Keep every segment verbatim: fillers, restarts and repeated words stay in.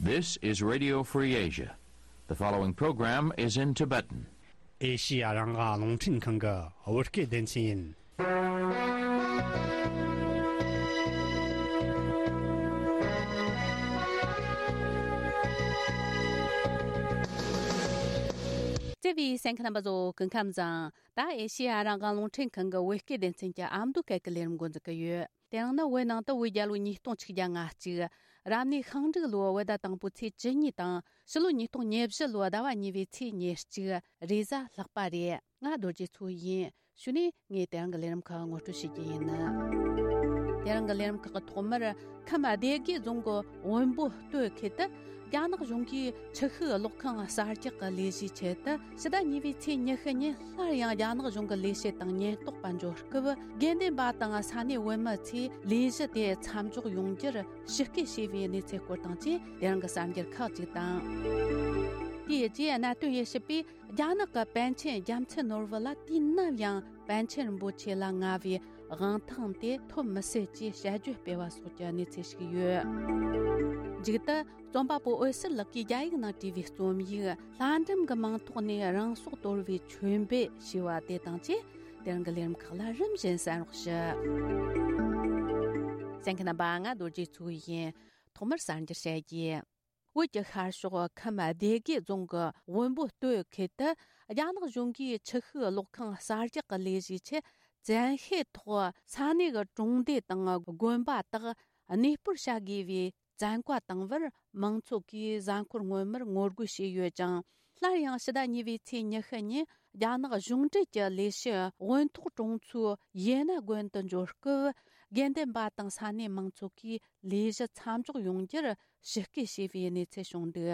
This is Radio Free Asia. The following program is in Tibetan. ཨེ་ཤི་ཡ་རང་དབང་རླུང་འཕྲིན་ཁང་གི་བོད་སྐད་སྡེ་ཚན་ཡིན། བརྩེ་བའི་གསན་མཁན་རྣམ་པ་ཚོ་སྐུ་ཁམས་བཟང་། ད་ཨེ་ཤི་ཡ་རང་དབང་རླུང་འཕྲིན་ཁང་གི་བོད་སྐད་སྡེ་ཚན་གྱི་ཨ་མདོ་སྐད་ཀྱི་ལས་རིམ་འགོ་འཛུགས་ཀྱི་ཡོད། དེ་རིང་ནི་བོད་ནང་དུ་བོད་རྒྱལ་ལོ་ཉིས་སྟོང་ཆིག་བརྒྱ་ལྔ་གཅིག་རབ་གནས་ཤིང་འབྲུག་ལོའི་བོད་ཟླ་དང་པོའི་ཚེས་བཅུ་གཉིས་དང་། ཕྱི་ལོ་ཉིས་སྟོང་ཉེར་བཞི་ལོའི་ཟླ་བ་གཉིས་པའི་ཚེས་ཉེར་གཅིག་རེས་གཟའ་ལྷག་པ་རེད། ང་རྡོ་རྗེ་མཚོ་ཡིན། གཞུག་ནས་ངས་དེ་རིང་གི་ལས་རིམ་ཁག་ངོ་སྤྲོད་བྱེད་ཀྱི་ཡིན། དེ་རིང་གི་ལས་རིམ་ཁག་གི་ཐོག་མར་ཁམས་སྡེ་དགེ་རྫོང་གི་བོན་པོ་སྟོད་ཁུལ་དུ་རྒྱ་ནག་གཞུང་གིས་ཆུ་ཤུགས་གློག་ཁང་གསར་རྒྱག་གི་ལས་གཞིའི་ཆེད་དུ་ཕྱི་ཟླ་གཉིས་པའི་ཚེས་ཉི་ཤུ་ཉིན་སླར་ཡང་རྒྱ་ནག་གཞུང་གི་ལས་བྱེད་དང་ཉེན་རྟོག་པ་འབྱོར་སྐབས། དགེ་འདུན་པ་དང་ས་གནས་བོད་མི་ཚོས་ལས་གཞི་དེ་མཚམས་འཇོག་ཡོང་རྒྱུར་ཞུ་སྐུལ་བྱས་པའི་གནས་ཚུལ་སྐོར་དང་བཅས་དེ་རིང་གི་གསར་འགྱུར་ཁག་ཅིག་དང་། དེའི་རྗེས་གནད་དོན་དབྱེ་ཞིབ་པས། རྒྱ་ནག་གི་པཎ་ཆེན་རྒྱལ་མཚན་ནོར་བུ་ལ་དུས་ནམ་ཡང་པཎ་ཆེན་རིན་པོ་ཆེ་ལ་མངའ་བའི་དབང་ཐང་དེ་ཐོབ་མི་སྲིད་ཅེས་དཔྱད་བརྗོད་སྤེལ་བ་སོགས་ཀྱི་གནས་ཚུལ་ཞིག་ཡོད། མཇུག་ཏུ་རྩོམ་པ་པོ་འོད་ཟེར་ལགས་ཀྱིས་རྒྱ་ཡིག་ནང་བྲིས་པའི་རྩོམ་ཡིག་ལྷ་འབྲུམ་གྱི་མིང་ཐོག་ནས་རང་སྲོག་དོར་བའི་མཆོད་འབུལ་ཞེས་པ་དེ་དང་བཅས་དེ་རིང་གི་ལས་རིམ་ཁག་ལ་རིམ་བཞིན་གསན་རོགས་ཞུ། གསན་མཁན་རྣམ་པ། ང་རྡོ་རྗེ་མཚོ་ཡིན། ཐོག་མར་གསར་འགྱུར་བཤད་རྒྱུ། བོད་ཀྱི་ཤར་ཕྱོགས་ཁམས་སྡེ་དགེ་རྫོང་གི་བོན་པོ་སྟོད་ཁུལ་དུ་རྒྱ་ནག་གཞུང་གིས་ཆུ་ཤུགས་གློག་ཁང་གསར་རྒྱག་གི་ལས་གཞིའི་ཆེད་བཙན་ཤེད་ཐོག་ས་གནས་ཀྱི་གྲོང་སྡེ་དང་དགོན་པ་དག་གནས་སྤོར་བྱ་དགོས་པའི་བཙན་བཀའ་བཏང་བར་མང་ཚོགས་ཀྱིས་གཟའ་འཁོར་སྔོན་མར་ངོ་རྒོལ་བྱས་ཡོད་ཅིང་། སླར་ཡང་ཕྱི་ཟླ་གཉིས་པའི་ཚེས་ཉི་ཤུ་ཉིན་རྒྱ་ནག་གཞུང་འབྲེལ་གྱི་ལས་བྱེད་དབོན་ཐོག་གྲོང་ཚོའི་ཡེ་ན་དགོན་དུ་འབྱོར་སྐབས། དགེ་འདུན་པ་དང་ས་གནས་མང་ཚོགས་ཀྱིས་ལས་གཞི་མཚམས་འཇོག་ཡོང་རྒྱུར་ཞུ་སྐུལ་བྱས་པའི་གནས་ཚུལ་བྱུང་འདུག་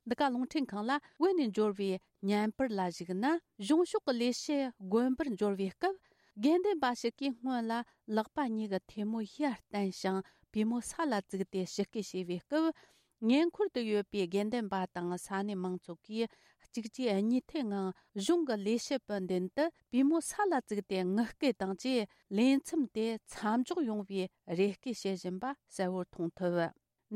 འདི་ག་རླུང་འཕྲིན་ཁང་ལ་བོད་ནས་འབྱོར་བའི་བརྙན་པར་ལ་གཞིགས་ན། གཞུང་ཕྱོགས་ཀྱི་ལས་བྱེད་དགོན་པར་འབྱོར་བའི་སྐབས། དགེ་འདུན་པ་ཞིག་གིས་སྔོན་ལ་ལག་པ་གཉིས་ཀྱི་ཐལ་མོ་ཡར་བསྟན་ཞིང་པུས་མོ་ས་ལ་བཙུགས་ཏེ་ཞུ་སྐུལ་བྱས་པའི་སྐབས། ཉེ་འཁོར་དུ་ཡོད་པའི་དགེ་འདུན་པ་དང་ས་གནས་མང་ཚོགས་ཀྱིས་གཅིག་རྗེས་གཉིས་མཐུད་ངང་གཞུང་གི་ལས་བྱེད་པའི་མདུན་དུ་པུས་མོ་ས་ལ་བཙུགས་ཏེ་ངུ་སྐད་དང་བཅས་ལས་མཚམས་དེ་མཚམས་འཇོག་ཡོང་བའི་རེ་སྐུལ་བྱེད་བཞིན་པ་གསལ་བོར་མཐོང་ཐུབ།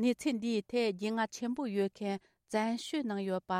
གནས་ཚུལ་འདིའི་ཐད་རྒྱུས་མངའ་ཆེན་པོ་ཡོད་མཁན་བཙན་བྱོལ་ནང་ཡོད་པ་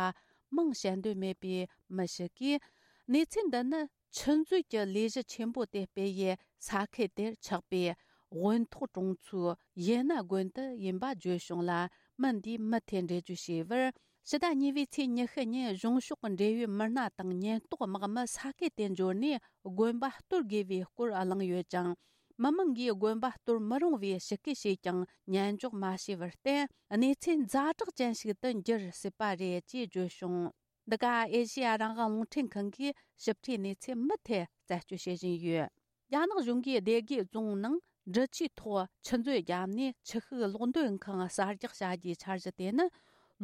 མིང་བཤད་འདོད་མེད་པའི་མི་ཞིག་གིས། གནས་ཚུལ་འདི་ནི་ཆུ་མཛོད་ཀྱི་ལས་གཞི་ཆེན་པོ་དེ་སྤེལ་ཡུལ་ས་ཁུལ་དེར་ཆགས་པའི་དབོན་ཐོག་གྲོང་ཚོའི་ཡེ་ན་དགོན་དུ་ཡིན་པ་བརྗོད་བྱུང་ལ། མི་འདིས་མུ་མཐུད་འགྲེལ་བརྗོད་བྱས་པར། ཕྱི་ཟླ་གཉིས་པའི་ཚེས་ཉི་ཤུ་ཉིན་གཞུང་ཕྱོགས་འབྲེལ་ཡོད་མི་སྣ་དང་ཉེན་རྟོག་དམག་མི་ས་ཁུལ་དེར་འབྱོར་ནས་དགོན་པ་གཏོར་དགོས་པའི་སྐོར་གླེང་ཡོད་ཅིང་། མི་མང་གིས་དགོན་པ་གཏོར་མི་རུང་བའི་ཞུ་སྐུལ་བྱས་ཀྱང་ཉན་འཇོག་མ་བྱས་པར་བརྟེན། གནས་ཚུལ་ཛ་དྲག་ཅན་ཞིག་ཏུ་འགྱུར་སྲིད་པ་རེད་ཅེས་བརྗོད་བྱུང་། འདི་ག་ཨེ་ཤེ་ཡ་རང་དབང་རླུང་འཕྲིན་ཁང་གིས་ཞིབ་ཕྲའི་གནས་ཚུལ་མུ་མཐུད་རྩད་གཅོད་བྱེད་བཞིན་ཡོད། རྒྱ་ནག་གཞུང་གིས་སྡེ་དགེ་རྫོང་ནང་འབྲི་ཆུའི་ཐོག་ཆུ་མཛོད་བརྒྱབ་ནས་ཆུ་ཤུགས་གློག་འདོན་ཁང་གསར་རྒྱག་བྱ་རྒྱུའི་འཆར་གཞི་དེ་ནི་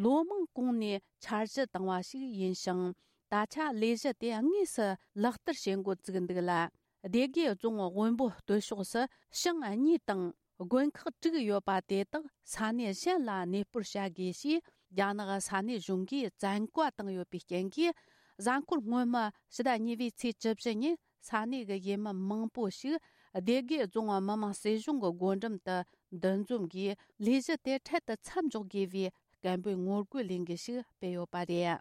ལོ་མང་གོང་ནས་འཆར་གཞི་བཏིང་བ་ཞིག་ཡིན་ཞིང་། ད་ཆ་ལས་གཞི་དེ་དངོས་སུ་ལག་བསྟར་བྱེད་འགོ་བཙུགས་འདུག་ལ། སྡེ་དགེ་རྫོང་དབོན་པོ་སྟོད་ཕྱོགས་སུ་ཞིང་གཉིས་དང་དགོན་ཁག་དྲུག་ཡོད་པ་དེ་དག་ས་གནས་གཞན་ལ་གནས་སྤོར་བྱ་དགོས་ཞེས་རྒྱ་ནག་ས་གནས་གཞུང་གིས་བཙན་བཀའ་བཏང་ཡོད་པའི་རྐྱེན་གྱིས། གཟའ་འཁོར་སྔོན་མ་ཕྱི་ཟླ་གཉིས་པའི་ཚེས་བཅུ་བཞི་ཉིན་ས་གནས་ཀྱི་ཡུལ་མི་མང་པོ་ཞིག་སྡེ་དགེ་རྫོང་མི་དམངས་སྲིད་གཞུང་གི་སྒོ་འགྲམ་དུ་འདུ་འཛོམས་ཀྱིས་ལས་གཞི་དེ་འཕྲལ་དུ་མཚམས་འཇོག་དགོས་པའི་སྐད་འབོད་ངོ་རྒོལ་ལས་འགུལ་ཞིག་སྤེལ་ཡོད་པ་རེད།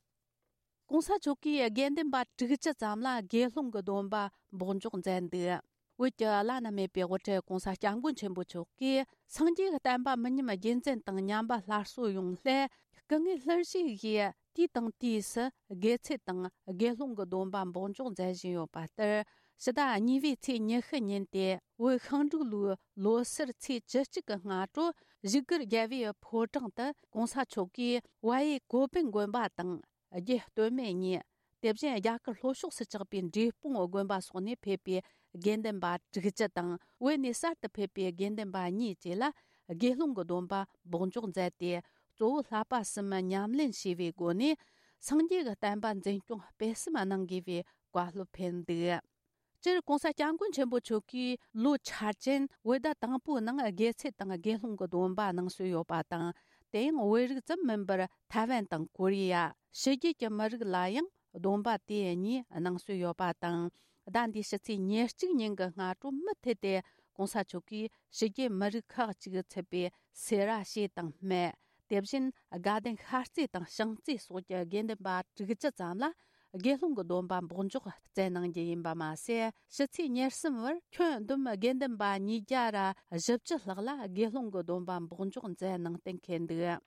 གོང་ས་མཆོག་གིས་དགེ་འདུན་པ་དྲུག་ཅུ་ཙམ་ལ་དགེ་སློང་གི་སྡོམ་པ་འབོགས་འཇོག་མཛད་འདུག་བོད་ཀྱི་བླ་ན་མེད་པའི་དབུ་ཁྲིད་གོང་ས་སྐྱབས་མགོན་ཆེན་པོ་མཆོག་གིས་སངས་རྒྱས་ཀྱི་བསྟན་པ་མི་ཉམས་རྒྱུན་འཛིན་དང་ཉམས་པ་སླར་གསོ་ཡོང་སླད། སྐུ་ངལ་སླར་གཞིག་གིས་དུས་དང་དུས་སུ་དགེ་ཚུལ་དང་དགེ་སློང་གི་སྡོམ་པ་འབོགས་འཇོག་མཛད་བཞིན་ཡོད་པ་ལྟར། ཕྱི་ཟླ་གཉིས་པའི་ཚེས་ཉི་ཤུ་ཉིན་ཏེ་བོད་ཤིང་འབྲུག་ལོའི་ལོ་སར་ཚེས་བཅུ་གཅིག་གི་སྔ་དྲོ་བཞུགས་སྒར་རྒྱལ་བའི་ཕོ་བྲང་དུ་གོང་ས་མཆོག་གིས་ཝ་ཡེ་ཀོ་པིན་དགོན་པ་དང་། རྒྱུད་སྟོད་སྨད་གཉིས། དེ་བཞིན་རྒྱ་གར་ལྷོ་ཕྱོགས་སུ་ཆགས་པའི་འབྲས་སྤུངས་དགོན་པ་སོགས་ནས་ཕེབས་པའི་དགེ་འདུན་པ་དྲུག་ཅུ་དང་། བོད་ནས་གསར་དུ་ཕེབས་པའི་དགེ་འདུན་པ་གཉིས་བཅས་ལ་དགེ་སློང་གི་སྡོམ་པ་འབོགས་འཇོག་མཛད་དེ། གཙོ་བོ་བསླབ་པ་གསུམ་ཉམས་ལེན་བྱས་པའི་སྒོ་ནས། སངས་རྒྱས་ཀྱི་བསྟན་པ་འཛིན་སྐྱོང་སྤེལ་གསུམ་གནང་དགོས་པའི་བཀའ་སློབ་ཕེབས་འདུག་སྤྱིར་གོང་ས་སྐྱབས་མགོན་ཆེན་པོ་མཆོག་གིས་ལོ་འཆར་ཅན་བོད་ཟླ་དང་པོའི་ནང་དགེ་ཚུལ་དང་དགེ་སློང་གི་སྡོམ་པ་གནང་སྲོལ་ཡོད་པ་དང་། དེ་ཡང་བོད་རིགས་ཙམ་མིན་པར་ཐའེ་ཝན་དང་ཀོ་རི་ཡ། ཕྱི་རྒྱལ་གྱི་མི་རིགས་ལ་ཡང་སྡོམ་པ་དེ་གཉིས་གནང་སྲོལ་ཡོད་པ་དང་། ཟླ་འདིའི་ཕྱི་ཚེས་ཉེར་གཅིག་ཉིན་གྱི་སྔ་དྲོ་མུ་མཐུད་དེ་གོང་ས་མཆོག་གིས་ཕྱི་རྒྱལ་མི་རིགས་ཁག་ཅིག་ཚུད་པའི་སེ་ར་བྱེས་དང་སྨད། དེ་བཞིན་དགའ་ལྡན་ཤར་རྩེ་དང་བྱང་རྩེ་སོགས་ཀྱི་དགེ་འདུན་པ་དྲུག་ཅུ་ཙམ་ལ་དགེ་སློང་གི་སྡོམ་པ་འབོགས་འཇོག་བསྩལ་གནང་རྒྱུ་ཡིན་པ་མ་ཟད། ཕྱི་ཚེས་ཉེར་གསུམ་བར་ཁྱོན་བསྡོམས་དགེ་འདུན་པ་ཉིས་བརྒྱ་ར་བཞི་བཅུ་ལྷག་ལ་དགེ་སློང་གི་སྡོམ་པ་འབོགས་འཇོག་མཛད་གནང་གཏན་འཁེལ་འདུག།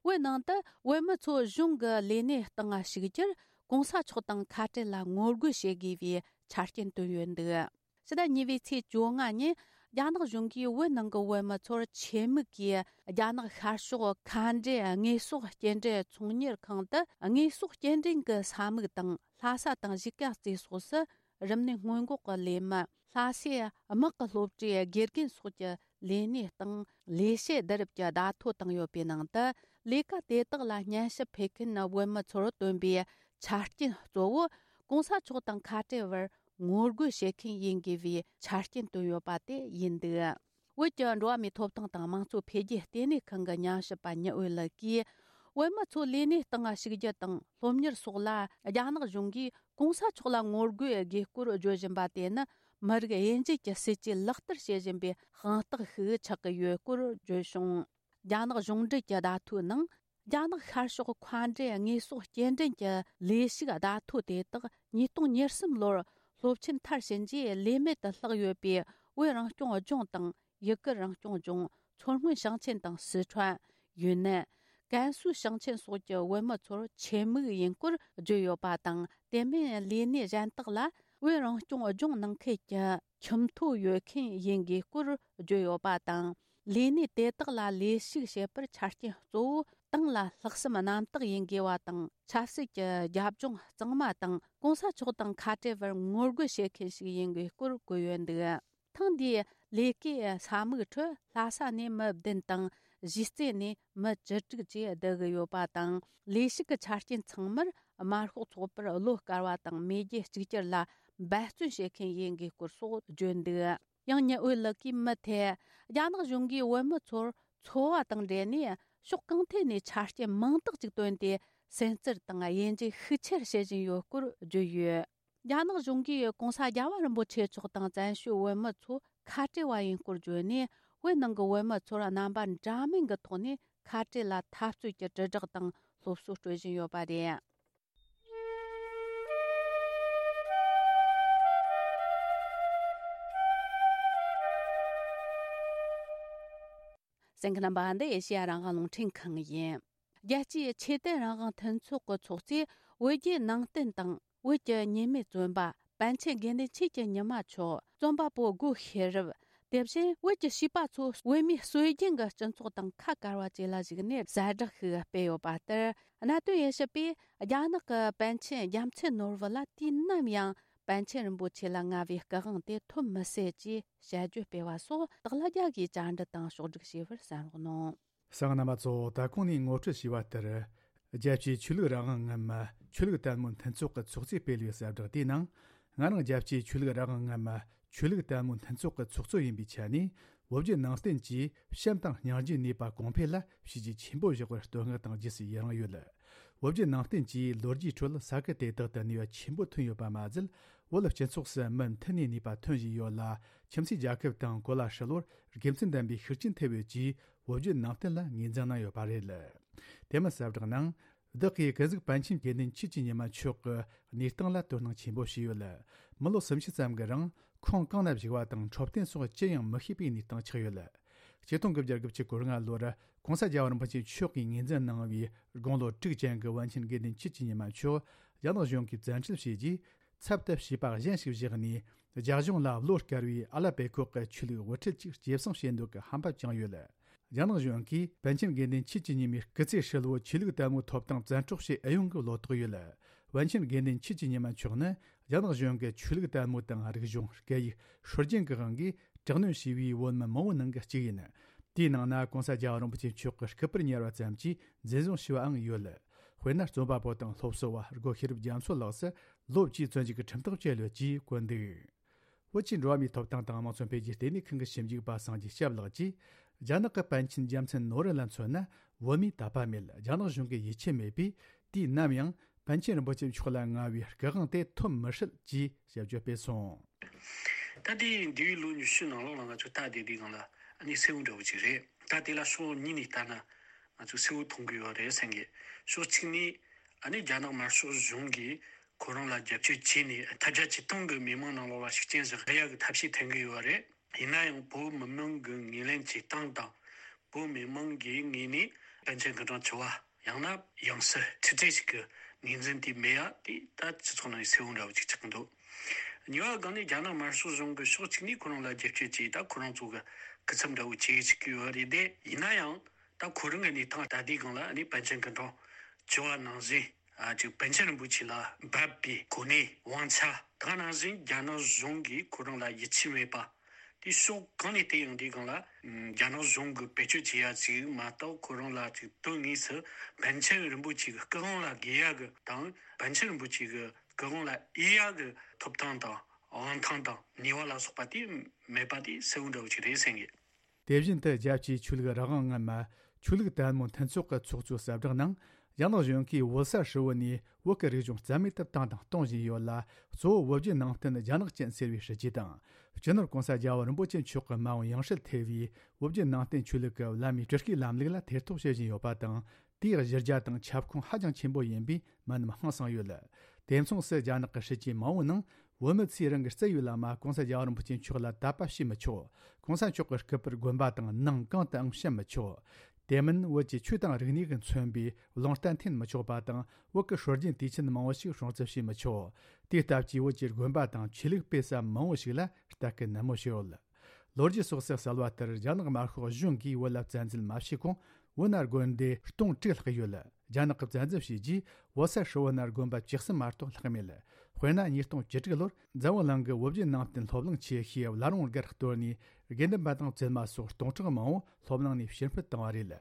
བོད་ནང་དུ་བོད་མི་ཚོ་གཞུང་གི་ལས་གནས་སྟེང་ཞུགས་རྒྱུར་གོང་ས་མཆོག་དང་ཁ་བྲལ་ལ་ངོ་རྒོལ་བྱེད་དགོས་པའི་ཆ་རྐྱེན་བཏོན་ཡོད་འདུག། ཕྱི་ཟླ་གཉིས་པའི་ཚེས་བཅོ་ལྔ་ཉིན་རྒྱ་ནག་གཞུང་གིས་བོད་ནང་གི་བོད་མི་ཚོར་ཆེད་དམིགས་ཀྱིས་རྒྱ་ནག་ཤར་ཕྱོགས་མཁའ་འགྲུལ་དངོས་ཟོག་སྐྱེལ་འདྲེན་ཚོང་གཉེར་ཁང་དུ་དངོས་ཟོག་སྐྱེལ་འདྲེན་གྱི་ས་མིག་དང་ལྷ་ས་དང་གཞིས་ཀ་རྩེ་སོགས་སུ་རིམས་ནད་སྔོན་འགོག་གི་ལས་མི། ལྷ་སའི་དམག་གི་སློབ་གྲྭའི་དགེ་རྒན་སོགས་ཀྱི་ལས་གནས་སྟེང་ལས་བྱེད་བསྡུ་རུབ་ཀྱི་བརྡ་ཐོ་བཏང་ཡོད་པའི་ནང་དུ། ལས་ཀ་དེ་དག་ལ་སྙན་ཞུ་ཕུལ་མཁན་བོད་མི་ཚོར་བཏོན་པའི་ཆ་རྐྱེན་གཙོ་བོ་གོང་ས་མཆོག་དང་ཁ་བྲལ་བར་ངོ་རྒོལ་བྱེད་མཁན་ཡིན་དགོས་པའི་ཆ་རྐྱེན་བཏོན་ཡོད་པ་དེ་ཡིན་འདུག། བོད་ཀྱི་འགྲོ་བ་མིའི་ཐོབ་ཐང་དང་དམངས་གཙོ་འཕེལ་རྒྱས་ལྟེ་གནས་ཁང་གི་ཉམས་ཞིབ་པ་ཉི་འོད་ལགས་ཀྱིས། བོད་མི་ཚོ་ལས་གནས་སྟེང་ཞུགས་རྒྱུ་དང་སློབ་གཉེར་སོགས་ལ་རྒྱ་ནག་གཞུང་གིས་གོང་ས་མཆོག་ལ་ངོ་རྒོལ་དགོས་སྐོར་བརྗོད་བཞིན་པ་དེ་ནི་མི་རིགས་དབྱེ་འབྱེད་ཀྱི་སྲིད་ཇུས་ལག་བསྟར་བྱེད་བཞིན་པའི་དཔང་རྟགས་ཤིག་ཆགས་ཀྱི་ཡོད་སྐོར་བརྗོད་བྱུང་། རྒྱ་ནག་གཞུང་འབྲེལ་གྱི་བརྡ་ཐོའི་ནང་། རྒྱ་ནག་ཤར་ཕྱོགས་མཁའ་འགྲུལ་དངོས་ཟོག་སྐྱེལ་འདྲེན་གྱི་ལས་ཞུགས་བརྡ་ཐོ་དེ་དག་ཉིས་སྟོང་ཉེར་གསུམ་ལོར་སློབ་ཆེན་མཐར་ཕྱིན་རྗེས་ལས་མེད་དུ་ལྷག་ཡོད་པའི་བོད་རང་སྐྱོང་ལྗོངས་དང་། ཡུ་གུར་རང་སྐྱོང་ལྗོངས། མཚོ་སྔོན་ཞིང་ཆེན་དང་སི་ཁྲོན། ཡུན་ནན། ཀན་སུའུ་ཞིང་ཆེན་སོགས་ཀྱི་བོད་མི་ཚོར་ཆེད་དམིགས་ཡིན་སྐོར་བརྗོད་ཡོད་པ་དང་། དེ་མིན་ལས་གནས་གཞན་དག་ལ་བོད་རང་སྐྱོང་ལྗོངས་ནང་ཁུལ་གྱི་ཁྱིམ་ཐོ་ཡོད་མཁན་ཡིན་དགོས་སྐོར་བརྗོད་ཡོད་པ་དང་། ལས་གནས་དེ་དག་ལ་ལས་ཞུགས་བྱེད་པར་ཆ་རྐྱེན་གཙོ་བོ་ཏང་ལ་ལྷག་བསམ་རྣམ་དག་ཡིན་དགོས་པ་དང་། ཆབ་སྲིད་ཀྱི་རྒྱབ་ལྗོངས་གཙང་མ་དང་། གོང་ས་མཆོག་དང་ཁ་བྲལ་བར་ངོ་རྒོལ་བྱེད་མཁན་ཞིག་ཡིན་དགོས་སྐོར་བཀོད་ཡོད་འདུག། ཐེངས་འདིའི་ལས་ཀའི་ས་མིག་ཁྲོད་ལྷ་ས་ནས་མི་བདུན་དང་། གཞིས་རྩེ་ནས་མི་བཅུ་དྲུག་བཅས་བསྡུ་གི་ཡོད་པ་དང་། ལས་ཞུགས་ཀྱི་ཆ་རྐྱེན་ཚང་མར་དམར་ཤོག་ཚོགས་པར་བློ་དཀར་བ་དང་མེས་རྒྱལ་གཅིག་གྱུར་ལ་འབད་བརྩོན་བྱེད་མཁན་ཡིན་དགོས་སྐོར་སོགས་བརྗོད་འདུག། ཡང་ཉི་འོད་ལགས་ཀྱིས་མུ་མཐུད་རྒྱ་ནག་གཞུང་གིས་བོད་མི་ཚོར་འཚོ་བ་དང་འབྲེལ་ནས་ཕྱོགས་གང་ཐད་ནས་ཆ་རྐྱེན་མང་དག་ཅིག་བཏོན་ཏེ་སེམས་ཚུལ་དང་དབྱེ་འབྱེད་ཤུགས་ཆེར་བྱེད་བཞིན་ཡོད་སྐོར་བརྗོད་ཡོད། རྒྱ་ནག་གཞུང་གིས་གོང་ས་རྒྱལ་བ་རིན་པོ་ཆེ་མཆོག་དང་བཙན་བྱོལ་བོད་མི་ཚོ་ཁ་བྲལ་བ་ཡིན་སྐོར་བརྗོད་ནས། བོད་ནང་གི་བོད་མི་ཚོར་རྣམ་པ་འདྲ་མིན་གྱི་ཐོག་ནས་ཁ་བྲལ་ལ་འཐབ་རྩོད་ཀྱི་དྲིལ་བསྒྲགས་དང་སློབ་གསོ་སྤྲོད་བཞིན་ཡོད་པ་རེད། གསན་མཁན་རྣམ་པ། འདི་ཨེ་ཤེ་ཡ་རང་དབང་རླུང་འཕྲིན་ཁང་ཡིན། རྒྱལ་སྤྱིའི་ཆོས་དད་རང་དབང་མཐུན་ཚོགས་ཀྱི་ཚོགས་གཙོས་བོད་བརྒྱུད་ནང་བསྟན་དང་བོད་ཀྱི་ཉེས་མེད་བཙོན་པ་པཎ་ཆེན་དགེ་འདུན་ཆོས་ཀྱི་ཉི་མ་མཆོག། རྩོམ་པ་པོ་སྒོ་ཤེས་རབ། དེ་བཞིན་བོད་ཀྱི་བྱིས་པ་ཚོ་བོད་མིའི་སྲོལ་རྒྱུན་གྱི་སྤྱི་ཚོགས་དང་ཁ་བཀར་བ་བཅས་ལ་གཞིགས་ནས་གསལ་བསྒྲགས་ཤིག་སྤེལ་ཡོད་པ་ལྟར། གནད་དོན་དབྱེ་ཞིབ་པས་རྒྱ་ནག་གི་པཎ་ཆེན་རྒྱལ་མཚན་ནོར་བུ་ལ་དུས་ནམ་ཡང་པཎ་ཆེན་རིན་པོ་ཆེ་ལ་མངའ་བའི་སྐུ་དབང་དེ་ཐོབ་མི་སྲིད་ཅེས་དཔྱད་བརྗོད་སྤེལ་བ་སོགས་སྟག་ལྷ་རྒྱལ་གྱིས་བཅར་འདྲི་དང་ཕྱོགས་བསྒྲིགས་བྱས་པར་གསན་རོགས་གནང་། གསན་མཁན་རྣམ་པ་ཚོ། ད་གོང་ནས་ངོ་སྤྲོད་བྱས་པ་ལྟར། རྒྱལ་སྤྱིའི་ཆོས་ལུགས་རང་དབང་ངམ་ཆོས་ལུགས་དད་མོས་མཐུན་ཚོགས་ཀྱི་ཚོགས་གཙོས་སྤེལ་བའི་གསལ་བསྒྲགས་དེའི་ནང་། ང་རང་རྒྱལ་སྤྱིའི་ཆོས་ལུགས་རང་དབང་ངམ་ཆོས་ལུགས་དད་མོས་མཐུན་ཚོགས་ཀྱི་ཚོགས་གཙོ་ཡིན་པའི་ཆ་ནས། བོད་བརྒྱུད་ནང་བསྟན་གྱིས་བྱམས་དང་སྙིང་རྗེའི་ནུས་པ་གོང་འཕེལ་ལ་བྱས་རྗེས་ཆེན་པོ་བཞག་པར་བསྟོད་བསྔགས་དང་རྗེས་སུ་ཡི་རང་ཡོད། བོད་བརྒྱུད་ནང་བསྟན་གྱིས་ལོ་རྒྱུས་ཁྲོད་ས་ཁུལ་དེ་དག་ཏུ་ནུས་པ་ཆེན་པོ་ཐོན་ཡོད་པ་མ་ཟད། བོད་སྤྱི་ཚོགས་སུ་མུ་མཐུད་ནས་ནུས་པ་ཐོན་བཞིན་ཡོད་ལ། ཁྱིམ་མཚེས་རྒྱལ་ཁབ་དང་གོ་ལ་ཧྲིལ་བོར་དགེ་མཚན་ལྡན་པའི་ཤུགས་རྐྱེན་ཐེབས་ཡོད་ཅེས་བོད་བརྒྱུད་ནང་བསྟན་ལ་ངོས་འཛིན་གནང་ཡོད་པ་རེད། དེ་མིན་གསལ་བསྒྲགས་ནང་། བདག་གིས་ཀུན་གཟིགས་པཎ་ཆེན་དགེ་འདུན་ཆོས་ཀྱི་ཉི་མ་མཆོག་གི་གནས་སྟངས་ལ་དོ་སྣང་ཆེན་པོ་བྱས་ཡོད། མི་ལོ་སུམ་ཅུ་ཙམ་གྱི་རིང་ཁོང་གང་ན་བཞུགས་པ་དང་འཕྲོད་བསྟེན་སོགས་ཅི་ཡང་མི་ཤེས་པའི་གནས་སྟངས་ཆགས་ཡོད། ཆིག་སྟོང་དགུ་བརྒྱ་དགུ་བཅུ་གོ་ལྔ་ལོར་༸གོང་ས་རྒྱལ་བ་རིན་པོ་ཆེ་མཆོག་གིས་ངོས་འཛིན་གནང་བའི་དགུང་ལོ་དྲུག་ཅན་གྱི་པཎ་ཆེན་དགེ་འདུན་ཆོས་ཀྱི་ཉི་མ་མཆོག་རྒྱ་ནག་གཞུང་གིས་བཙན་ཁྲིད་བྱས་རྗེས། ཚབ་ཏུ་བྱིས་པ་གཞན་ཞིག་བཞག་ནས། རྒྱ་གཞུང་ལ་བློ་དཀར་བའི་ཨ་ལ་པེ་ཁོག་གི་ཆོས་ལུགས་དབུ་ཁྲིད་ཅིག་སྐྱེད་སྲིང་བྱེད་འདོད་ཀྱི་ཧམ་པ་བཅངས་ཡོད། རྒྱ་ནག་གཞུང་གིས་པཎ་ཆེན་དགེ་འདུན་ཆོས་ཀྱི་ཉི་མའི་སྐུ་ཚེ་ཧྲིལ་བོ་ཆོས་ལུགས་དད་མོས་ཐོབ་ཐང་བཙན་འཕྲོག་བྱེད་ཨེ་ཡོང་གི་བློ་དོགས་ཡོད། པཎ་ཆེན་དགེ་འདུན་ཆོས་ཀྱི་ཉི་མ་མཆོག་ནི་རྒྱ་ནག་གཞུང་གི་ཆོས་ལུགས་དད་མོས་དང་རིག་གཞུང་། སྐད་ཡིག། སྲོལ་རྒྱུན་གྱི་དབང་གིས་དྲག་གནོན་བྱས་པའི་བོད་མི་མང་བོའི་ནང་གི་གཅིག་ཡིན། དེའི་ནང་ན་༸གོང་ས་རྒྱལ་བ་རིན་པོ་ཆེ་མཆོག་གི་སྐུ་པར་ཉར་བ་ཙམ་གྱིས་འཛིན་བཟུང་བྱས་པའང་ཡོད། དཔེར་ན། རྩོམ་པ་པོ་དང་སློབ་གསོ་བ་སྒོ་ཤེས་རབ་རྒྱ་མཚོ་ལགས་སུ་ལོ་བཅུའི་བཙོན་འཇུག་གི་ཁྲིམས་ཐག་བཅད་ཡོད་ཅེས་བཀོད་འདུག། བོད་ཀྱི་འགྲོ་བ་མིའི་ཐོབ་ཐང་དང་དམངས་གཙོ་འཕེལ་རྒྱས་ལྟེ་གནས་ཁང་གི་ཞིབ་འཇུག་པ་སངས་རྒྱས་སྐྱབས་ལགས་ཀྱིས། རྒྱ་ནག་གི་པཎ་ཆེན་རྒྱལ་མཚན་ནོར་བུ་ལ་མཚོན་ན། བོད་མིའི་དད་པ་མེད། རྒྱ་ནག་གཞུང་གི་ཡིད་ཆེས་མེད་པས། དུས་ནམ་ཡང་པཎ་ཆེན་རིན་པོ་ཆེ་མཆོག་ལ་མངའ་བའི་སྐུ་དབང་དེ་ཐོབ་མི་སྲིད་ཅེས་དཔྱད་བརྗོད་སྤེལ་སོང་། ད་ལྟའི་འདས་པའི་ལོ་ཉི་ཤུ་ནང་ལོགས་ལ་ང་ཚོ་ལྟ་བསྡད་དུས་སྒང་ལ་ཨ་ནི་གསལ་བོ་འདྲ་བོ་ཅིག་རེད། ད་དེ་ལ་ཕྱོགས་གཉིས་ནས་ལྟ་ན། ང་ཚོས་གསལ་བོ་མཐོང་གི་ཡོད་རེད་བསམ་གི། ཕྱོགས་གཅིག་ནས་ཨ་ནི་རྒྱ་ནག་དམར་ཤོག་གཞུང་གིས་ཁོ་རང་ལ་རྒྱབ་སྐྱོར་བྱས་ནས་ཐལ་སྒྲ་ཇི་བཏང་གི་མི་མང་ནང་ལོགས་ལ་ཤུགས་རྐྱེན་ཞིག་སླེབས་ཡག་གི་ཐབས་ཤེས་འཐེན་གི་ཡོད་རེད། ཡིན་ན་ཡང་བོད་མི་མང་གི་ངོས་ལེན་བྱེད་སྟངས་དང་། བོད་མི་མང་གི་ངོས་ནས་པཎ་ཆེན་སྐུ་ཕྲེང་བཅུ་བ་ཡང་ན་ཡང་སྲིད་ཁྲི་བརྩེགས་ཤིག་གི་ངོས་འཛིན་དེ་མེད་ཡ་དེ་ད་སྤྱི་ཚོགས་ནང་གསལ་བོ་འདྲ་བོ་ཅིག་ཆགས་ཀྱི་འདུག་གཉིས་པ་སྒང་ནས་རྒྱ་ནག་དམར་ཤོག་གཞུང་གི་ཕྱོགས་གཅིག་ནས་ཁོ་རང་ལ་རྒྱབ་སྐྱོར་བྱས། ད་ཁོ་རང་ཚོ་གི་སྐུ་ཚབ་འདྲ་བོ་བྱེད་ཅིག་གི་ཡོད་རེད་དེ། ཡིན་ན་ཡང་ད་ཁོ་རང་གི་གནས་སྟངས་ད་ལྟའི་སྒང་ལ་ཨ་ནི་པཎ་ཆེན་སྐུ་ཕྲེང་བཅུ་བ་ནང་བཞིན། ཨ་ཅིག་པཎ་ཆེན་རིན་པོ་ཆེ་ལ་འབབ་པའི་གོ་གནས་དབང་ཆ་དེ་ག་ནང་བཞིན་རྒྱ་ནག་གཞུང་གིས་ཁོ་རང་ལ་ཡིད་ཆེས་མེད་པ། དེ་ཕྱོགས་གང་ནས་བལྟས་ཡང་དེའི་སྒང་ལ་ཨམ་རྒྱ་ནག་གཞུང་གིས་བེད་སྤྱོད་བྱེད་ཡ་ཅིག་མ་གཏོགས། ཁོ་རང་ལ་ཅིག་དོན་དངོས་སུ་པཎ་ཆེན་རིན་པོ་ཆེ་གི་སྐུ་དབང་ལ་དགོས་ཡ་གི་དང་། པཎ་ཆེན་རིན་པོ་ཆེ་གི་སྐུ་དབང་ལ་དབྱེ་ཡ་གི་ཐོབ་ཐང་དང་དབང་ཐང་དང་ནུས་པ་ལ་སོགས་པ་དེ་མེད་པ་དེ་གསལ་བོ་འདྲ་བོ་ཅིག་རེད་བསམ་གི། དེ་བཞིན་དུ་རྒྱལ་སྤྱིའི་ཆོས་ལུགས་རང་དབང་ངན་མ་ཆོས་ལུགས་དད་མོས་མཐུན་ཚོགས་ཀྱི་ཚོགས་གཙོའི་གསལ་བསྒྲགས་ནང་། རྒྱ་ནག་གཞུང་གིས་བོད་ས་ཧྲིལ་བོ་ནས་བོད་ཀྱི་རིག་གཞུང་རྩ་མེད་དུ་བཏང་དང་གཏོང་བཞིན་ཡོད་ལ། གཙོ་བོ་བོད་བརྒྱུད་ནང་བསྟན་རྒྱ་ནག་ཅན་ཟེར་བའི་སྲིད་ཇུས་དང་། སྤྱི་ནོར་༸གོང་ས་༸རྒྱལ་བ་རིན་པོ་ཆེ་མཆོག་གི་མ་འོངས་ཡང་སྲིད་ཐེ་བའི་བོད་བརྒྱུད་ནང་བསྟན་ཆོས་ལུགས་ཀྱི་བླ་མའི་སྤྲུལ་སྐུའི་ལམ་ལུགས་ལ་ཐེ་གཏོགས་བྱེད་བཞིན་ཡོད་པ་དང་། དེའི་གཞི་རྒྱ་དང་ཁྱབ་ཁོངས་ཧ་ཅང་ཆེན་པོ་ཡིན་པས་མི་རྣམས་ཧང་སངས་ཡོད། དེ་མཚུངས་སུ་རྒྱ་ནག་གི་སྲིད་ཇུས་མང་བོའི་ནང་། བོད་མི་ཚོས་རང་གི་རྩ་བའི་བླ་མ་༸གོང་ས་༸རྒྱལ་བ་རིན་པོ་ཆེ་མཆོག་ལ་དད་པ་བྱེད་མི་ཆོག །༸གོང་ས་མཆོག་གི་སྐུ་པར་དགོན་པ་དང་ནང་གང་དུའང་བཤམ་མི་ཆོག །དེ་མིན་བོད་ཀྱི་ཆོས་དང་རིག་གནས་ཀྱིས་མཚོན་པའི་རླུང་རྟ་འཐེན་མི་ཆོག་པ་དང་། བོད་ཀྱི་སྲོལ་རྒྱུན་དུས་ཆེན་མང་བོ་ཞིག་སྲུང་བརྩི་བྱེད་མི་ཆོག །དེའི་སྟབས་ཀྱིས་བོད་ཀྱི་དགོན་པ་དང་ཆོས་ལུགས་སྤེལ་ས་མང་བོ་ཞིག་ལ་ལྟ་སྐུལ་ནན་མོ་བྱས་ཡོད། ལོ་རྒྱུས་སོགས་སུ་གསལ་བ་ལྟར། རྒྱ་ནག་དམར་ཤོག་གཞུང་གིས་བོད་ལ་བཙན་འཛུལ་མ་བྱས་གོང་། བོད་ན་དགོན་སྡེ་སྟོང་དྲུག་ལྷག་ཡོད། རྒྱ་ནག་གིས་བཙན་འཛུལ་བྱས་རྗེས། བོད་ས་ཧྲིལ་བོ་ན་དགོན་པ་བཅུ་གསུམ་མ་གཏོགས་ལྷག་མེད། དཔེར་ན། ཉིས་སྟོང་བཅུ་དྲུག་ལོར་འཛམ་བུ་གླིང་གི་བོད་བརྒྱུད་ནང་བསྟན་སློབ་གླིང་ཆེ་ཤོས་བླ་རུང་སྒར་གཏོར་ནས། དགེ་འདུན་པ་དང་བཙུན་མ་སོགས་སྟོང་ཕྲག་མང་བོ་སློབ་གླིང་ནས་ཕྱིར་འཕུད་བཏང་བ་རེད།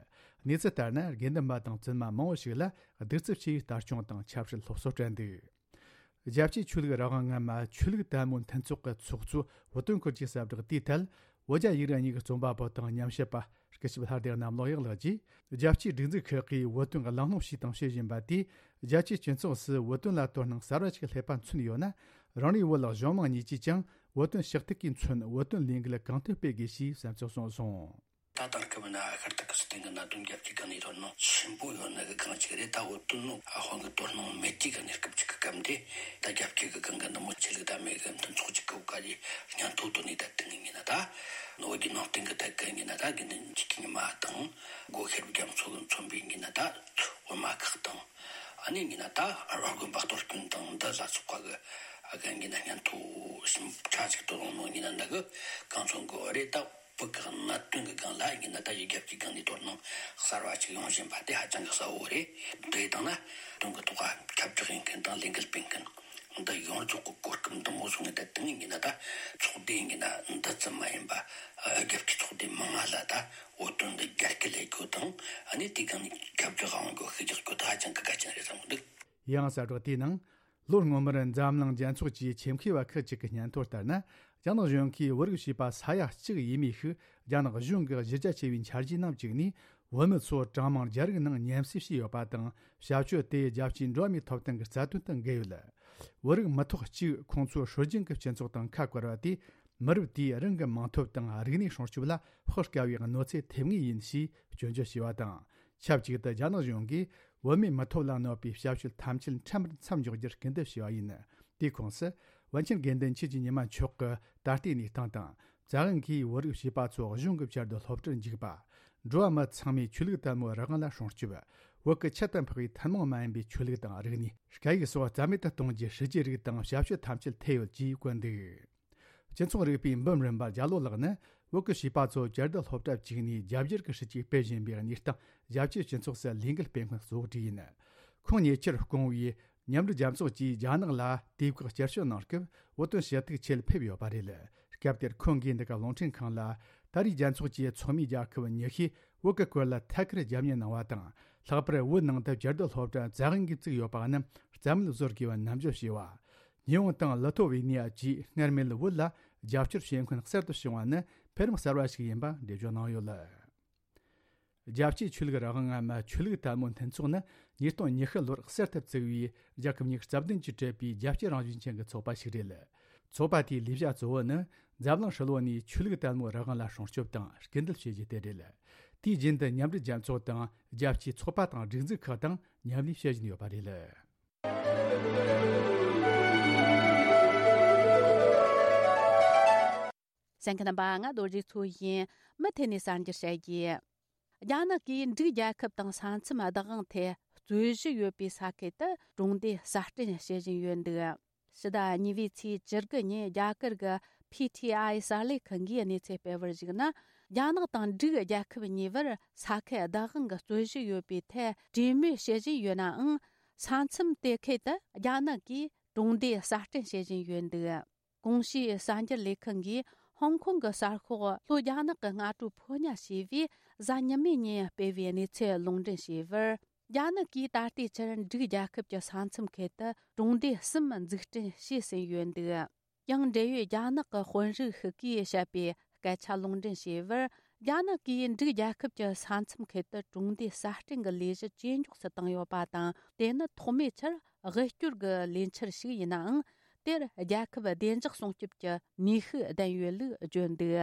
གནས་ཚུལ་ལྟར་ན། དགེ་འདུན་པ་དང་བཙུན་མ་མང་བོ་ཞིག་ལ་གདུག་རྩུབ་ཆེ་བའི་ལྟ་སྐྱོང་དང་ཆབ་སྲིད་སློབ་གསོ་སྤྲད་འདུག །རྒྱལ་སྤྱིའི་ཆོས་ལུགས་རང་དབང་ངན་མ་ཆོས་ལུགས་དད་མོས་མཐུན་ཚོགས་ཀྱི་ཚོགས་གཙོ་བུ་སྟོན་སྐུ་གྱིས་གསལ་བསྒྲགས་དེའི་ཐད། བོད་རྒྱ་ཡིག་རིགས་གཉིས་ཀྱི་རྩོམ་པ་པོ་དང་ཉམས་ཞིབ་པ་སྐུ་ཞབས་ལྷ་སྡེ་གནམ་ལོ་གཡག་ལགས་ཀྱིས། རྒྱལ་སྤྱིའི་སྒྲིག་འཛུགས་ཁག་གིས་བོད་དོན་གླེང་སློང་བྱས་དང་བྱེད་བཞིན་པ་དེས། རྒྱལ་སྤྱིའི་སྤྱི་ཚོགས་སུ་བོད་དོན་ལ་དོ་སྣང་གསར་བ་ཞིག་སླེབས་པ་མཚོན་ཡོད་ན། རང་རེའི་བོད་ལ་གཞུང་མང་གཉིས་ཀྱིས་ཀྱང་བོད་དོན་ཞུ་གཏུག་གིས་མཚོན་བོད་དོན་ལས་འགུལ་གང་ཐུབ་སྤེལ་དགོས་ཞེས་བསམ་ཚུལ་གསུངས་སོང་། ད་དེང་སྐབས་ན་ཤར་ཏུར་ཀི་སི་ཐན་གྱི་གནད་དོན་རྒྱལ་སྤྱིའི་སྒང་ནས་དོ་སྣང་ཆེན་པོ་ཡོད་ནི་གི་སྒང་གཅིག་རེད། ད་བོད་དོན་ནང་དབང་གི་དོ་སྣང་མེད་ཀྱི་གི་གནས་སྐབས་ཅིག་གི་སྐབས་འདི། ད་རྒྱལ་སྤྱི་གི་སྒང་གི་འདི་མོ་ཆོས་ལུགས་དད་མོས་གི་མཐུན་ཚོགས་ཅིག་གི་འོག་ག་ཡི་སྙན་ཐོ་བཏོན་ནས། ད་དེ་ཡིན་ན་ད་བོད་ཀྱི་ནང་བསྟན་གི་ཐད་གི་ཡིན་ན། ད་དགེ་འདུན་གྱི་ཉི་མ་དང་སྒོ་ཤེར་བུ་རྒྱ་མཚོ་གི་མཚོན་པའི་ཡིན་ན། ད་འོད་མ་ཁག་དང་། ཨ་ནི་ཡིན་ན་ད་ར་དགོན་པ་གཏོར་སྐྱོན་དང་འདི་ལ་སོགས་པ་གི་ཨ་ག་ཡིན་ན་སྙན་ཐོ་ཞིབ་ཕྲ་ཅིག་བཏོན་ཡོང་ནོ་ཡིན་ན། འདི་གི་གང་མཚོན་གི་རེད། ད་བོད་ཀྱི་གནད་དོན་གྱི་སྒང་ལ་ཡིན་ན། ད་ཡི་རྒྱལ་སྤྱིའི་སྒང་ནས་དོ་སྣང་གསར་བ་ཅིག་ཡོང་བཞིན་པ་དེ་ཧ་ཅང་གི་གསལ་བོ་རེད། དེ་ཡིན་དང་ན་དོན་གྱི་ཐོག་ཁ་ཁྱབ་བསྒྲགས་ཡིན་མཁན་དང་ལས་འགུལ་སྤེལ་མཁན་འདི་ཡོངས་རྫོགས་ཀྱི་གོ་སྐབས་འདི་མོ་བཟུང་ནས། ད་དེ་ངས་ཡིན་ན་ད་ཚོགས་སྡེ་ཡིན་ན་འདི་ཙམ་མ་ཡིན་པ། རྒྱལ་སྤྱིའི་ཚོགས་སྡེ་མང་ང་ལ་ད་བོད་དོན་འདི་རྒྱ་སྐད་ལས་རྒྱུ་དང་། ཨ་ནི་དེའི་སྒང་ནས་ཁྱབ་བསྒྲགས་ཡོང་རྒྱུ་ཤུགས་རྒྱག་རྒྱུ་དེ་ཧ་ཅང་གི་གལ་ཆེན་རེད་བསམ་གི་འདུག །ཡང་གསལ་བསྒྲགས་དེའི་ནང་། ལོ་སྔོན་མར་འཛམ་གླིང་རྒྱལ་ཚོགས་ཀྱི་ཆེད་མཁས་པ་ཁག་ཅིག་གི་སྙན་ཐོ་ལྟར་ན། རྒྱ་ནག་གཞུང་གིས་བོད་རིགས་བྱིས་པ་ས་ཡ་གཅིག་ཡས་མས་ཤིག་རྒྱ་ནག་གཞུང་གི་གཞི་རྒྱ་ཆེ་བའི་འཆར་གཞིའི་ནང་བཅུག་ནས། བོད་མི་ཚོ་གྲངས་མང་རྒྱ་རིགས་ནང་མཉམ་བསྲེས་བྱས་ཡོད་པ་དང་། བྱ་སྤྱོད་དེ་རྒྱལ་སྤྱིའི་འགྲོ་བ་མིའི་ཐོབ་ཐང་གི་རྩ་དོན་དང་འགལ་ཡོད། བོད་རིགས་མི་ཐོག་གཅིག་ཁོང་ཚོའི་སྲོལ་རྒྱུན་གྱི་སྤྱི་ཚོགས་དང་ཁ་བཀར་བ་དེས། མི་རབས་དེའི་རང་གི་མིང་ཐོབ་དང་རིག་གནས་སྲུང་སྐྱོབ་ལ་དཔག་དཀའ་བའི་གནོད་འཚེ་ཐེབས་ངེས་ཡིན་ཞེས་སྐྱོན་བརྗོད་བྱས་པ་དང་། ཆབས་ཅིག་ཏུ་རྒྱ་ནག་གཞུང་གིས་བོད་མིའི་མི་ཐོབ་ལ་གནོད་པའི་བྱ་སྤྱོད་ཐམས་ཅད་ཁྲིམས་ལྟར་མཚམས་འཇོག་རྒྱུར་སྐུལ་འདེད་བྱས་པ་ཡིན། དེའི་ཁོངས་སུ། པཎ་ཆེན་དགེ་འདུན་ཆོས་ཀྱི་ཉི་མ་མཆོག་གི་ད་ལྟའི་གནས་སྟངས་དང་། བཙན་དབང་གིས་བོད་རིགས་བྱིས་པ་ཚོ་གཞུང་གི་བཅའ་སྡོད་སློབ་གྲྭར་འཇུག་པ། འགྲོ་བ་མི་ཚང་མས་ཆོས་ལུགས་དད་མོས་རང་དབང་ལ་སྲུང་སྐྱོབ། བོད་ཀྱི་ཁྱད་དུ་འཕགས་པའི་ཐུན་མོང་མ་ཡིན་པའི་ཆོས་ལུགས་དང་རིག་གནས། སྐད་ཡིག་སོགས་རྩ་མེད་དུ་གཏོང་རྒྱུའི་སྲིད་ཇུས་རིགས་དང་བྱ་སྤྱོད་ཐམས་ཅད་ཐེ་ཡོད་ཅེས་བཀོད་འདུག ། སྤྱི་ཚོགས་རིག་པའི་འབུམ་རམས་པ་རྒྱ་ལོ་ལགས་ནི། བོད་ཀྱི་བྱིས་པ་ཚོ་བཅའ་སྡོད་སློབ་གྲྭར་བཅུག་ནས་རྒྱ་སྒྱུར་གྱི་སྲིད་ཇུས་སྤེལ་བཞིན་པའི་གནས་སྟངས། རྒྱལ་སྤྱིའི་སྤྱི་ཚོགས་སུ་ལས་འགུལ་སྤེལ་མཁན་གཙོ་བོ་དེ་ཡིན། ཁོང་ཉེ་ཆར་སྐུ་ངོ་བོས་མཉམ་འབྲེལ་རྒྱལ་ཚོགས་ཀྱིས་རྒྱ་ནག་ལ་དུས་བཀག་བསྐྱར་བཅོས་གནང་སྐབས། བོད་དོན་ཞུ་གཏུག་ཆེད་ཕེབས་ཡོད་པ་རེད། སྐབས་དེར་ཁོང་གིས་འདི་ག་རླུང་འཕྲིན་ཁང་ལ། ད་རེས་རྒྱལ་ཚོགས་ཀྱི་ཚོགས་མི་རྒྱལ་ཁབ་ཉི་ཤུས་བོད་ཀྱི་སྐོར་ལ་ཐད་ཀར་རྒྱབ་གཉེར་གནང་བ་དང་། ལྷག་པར་བོད་ནང་དུ་བཅའ་སྡོད་སློབ་གྲྭ་བཙན་དབང་གིས་བཙུགས་ཡོད་པ་རྣམས་རྩ་མེད་བཟོ་དགོས་པ་ནན་བརྗོད་བྱས་པ། ཉི་འོང་དང་ལི་ཐོ་ཝེ་ནི་ཡ་བཅས་སྔར་མེད་བོད་ལ་རྒྱབ་སྐྱོར་བྱེད་མཁན་གསར་དུ་བྱུང་བ་ནི་འཕེལ་རིམ་གསར་བ་ཞིག་ཡིན་པ་འགྲེལ་བརྗོད་གནང་ཡོད། རྒྱལ་སྤྱིའི་ཆོས་ལུགས་རང་དབང་ངན་མ་ཆོས་ལུགས་དད་མོས་མཐུན་ཚོགས་ནི་ཉིས་སྟོང་ཉི་ཤུ་ལོར་གསར་དུ་བཙུགས་པའི་རྒྱལ་ཁབ་ཉི་ཤུ་རྩ་བདུན་གྱིས་གྲུབ་པའི་རྒྱལ་སྤྱི་རང་བཞིན་ཅན་གྱི་ཚོགས་པ་ཞིག་རེད། ཚོགས་པ་དེའི་ལས་བྱ་གཙོ་བོ་ནི་འཛམ་གླིང་ཧྲིལ་བོ་ནས་ཆོས་ལུགས་དད་མོས་རང་དབང་ལ་སྲུང་སྐྱོབ་དང་སྐུལ་འདེད་བྱེད་རྒྱུ་དེ་རེད། དུས་རྒྱུན་དུ་མཉམ་འབྲེལ་རྒྱལ་ཚོགས་དང་རྒྱལ་སྤྱིའི་ཚོགས་པ་དང་སྒྲིག་འཛུགས་ཁག་དང་མཉམ་ལས་བྱེད་བཞིན་ཡོད་པ་རེད། གསན་མཁན་རྣམ་པ། ང་རྡོ་རྗེ་མཚོ་ཡིན། མུ་མཐུད་ནས་གསར་འགྱུར་བཤད་རྒྱུ། རྒྱ་ནག་གིས་འབྲུག་རྒྱལ་ཁབ་དང་ས་མཚམས་བདག་དབང་ཐད་རྩོད་གཞི་ཡོད་པའི་ས་ཁུལ་དུ་གྲོང་སྡེ་གསར་སྐྲུན་བྱེད་བཞིན་ཡོད་འདུག་ཕྱི་ཟླ་གཉིས་པའི་ཚེས་བཅུ་དགུ་ཉིན་རྒྱ་གར་གྱི་P T I གསར་ལས་ཁང་གིས་གནས་ཚུལ་སྤེལ་བར་གཞིགས་ན། རྒྱ་ནག་དང་འབྲུག་རྒྱལ་ཁབ་གཉིས་བར་ས་ཁུལ་བདག་དབང་གི་རྩོད་གཞི་ཡོད་པའི་ཐད་གྲོས་མོལ་བྱེད་བཞིན་ཡོད་ནའང་། ས་མཚམས་དེ་ཁུལ་དུ་རྒྱ་ནག་གིས་གྲོང་སྡེ་གསར་སྐྲུན་བྱེད་བཞིན་ཡོད་འདུག་གོང་ཞུས་གསར་འགྱུར་ལས་ཁང་གིས་ཧོང་ཀོང་གི་གསར་ཤོག་ལྷོ་རྒྱ་ནག་གི་སྔ་དྲོ་ཕོ་ཉ་ཞེས་པས་གཟའ་ཉི་མའི་ཉིན་སྤེལ་བའི་གནས་ཚུལ་ལུང་འདྲེན་བྱས་པར། རྒྱ་ནག་གིས་ད་ལྟའི་ཆར་འབྲུག་རྒྱལ་ཁབ་ཀྱི་ས་མཚམས་ཁུལ་དུ་གྲོང་སྡེ་གསུམ་འཛུགས་སྐྲུན་བྱས་ཟིན་ཡོད་འདུག་ཡང་འབྲེལ་ཡོད་རྒྱ་ནག་གི་དཔོན་རིགས་ཤིག་གིས་བཤད་པའི་སྐད་ཆ་ལུང་འདྲེན་བྱས་པར། རྒྱ་ནག་གིས་འབྲུག་རྒྱལ་ཁབ་ཀྱི་ས་མཚམས་ཁུལ་དུ་གྲོང་སྡེ་གསར་སྐྲུན་གྱི་ལས་གཞི་ཇེ་མགྱོགས་སུ་བཏང་ཡོད་པ་དང་། དེ་ནི་ཐོག་མའི་ཆར་དབུལ་སྐྱོར་གྱི་ལས་འཆར་ཞིག་ཡིན་ནའང་། དེར་རྒྱལ་ཁབ་བདེ་འཇགས་སྲུང་སྐྱོབ་ཀྱི་ནུས་ཤུགས་ལྡན་ཡོད་ལུགས་བརྗོད་འདུག་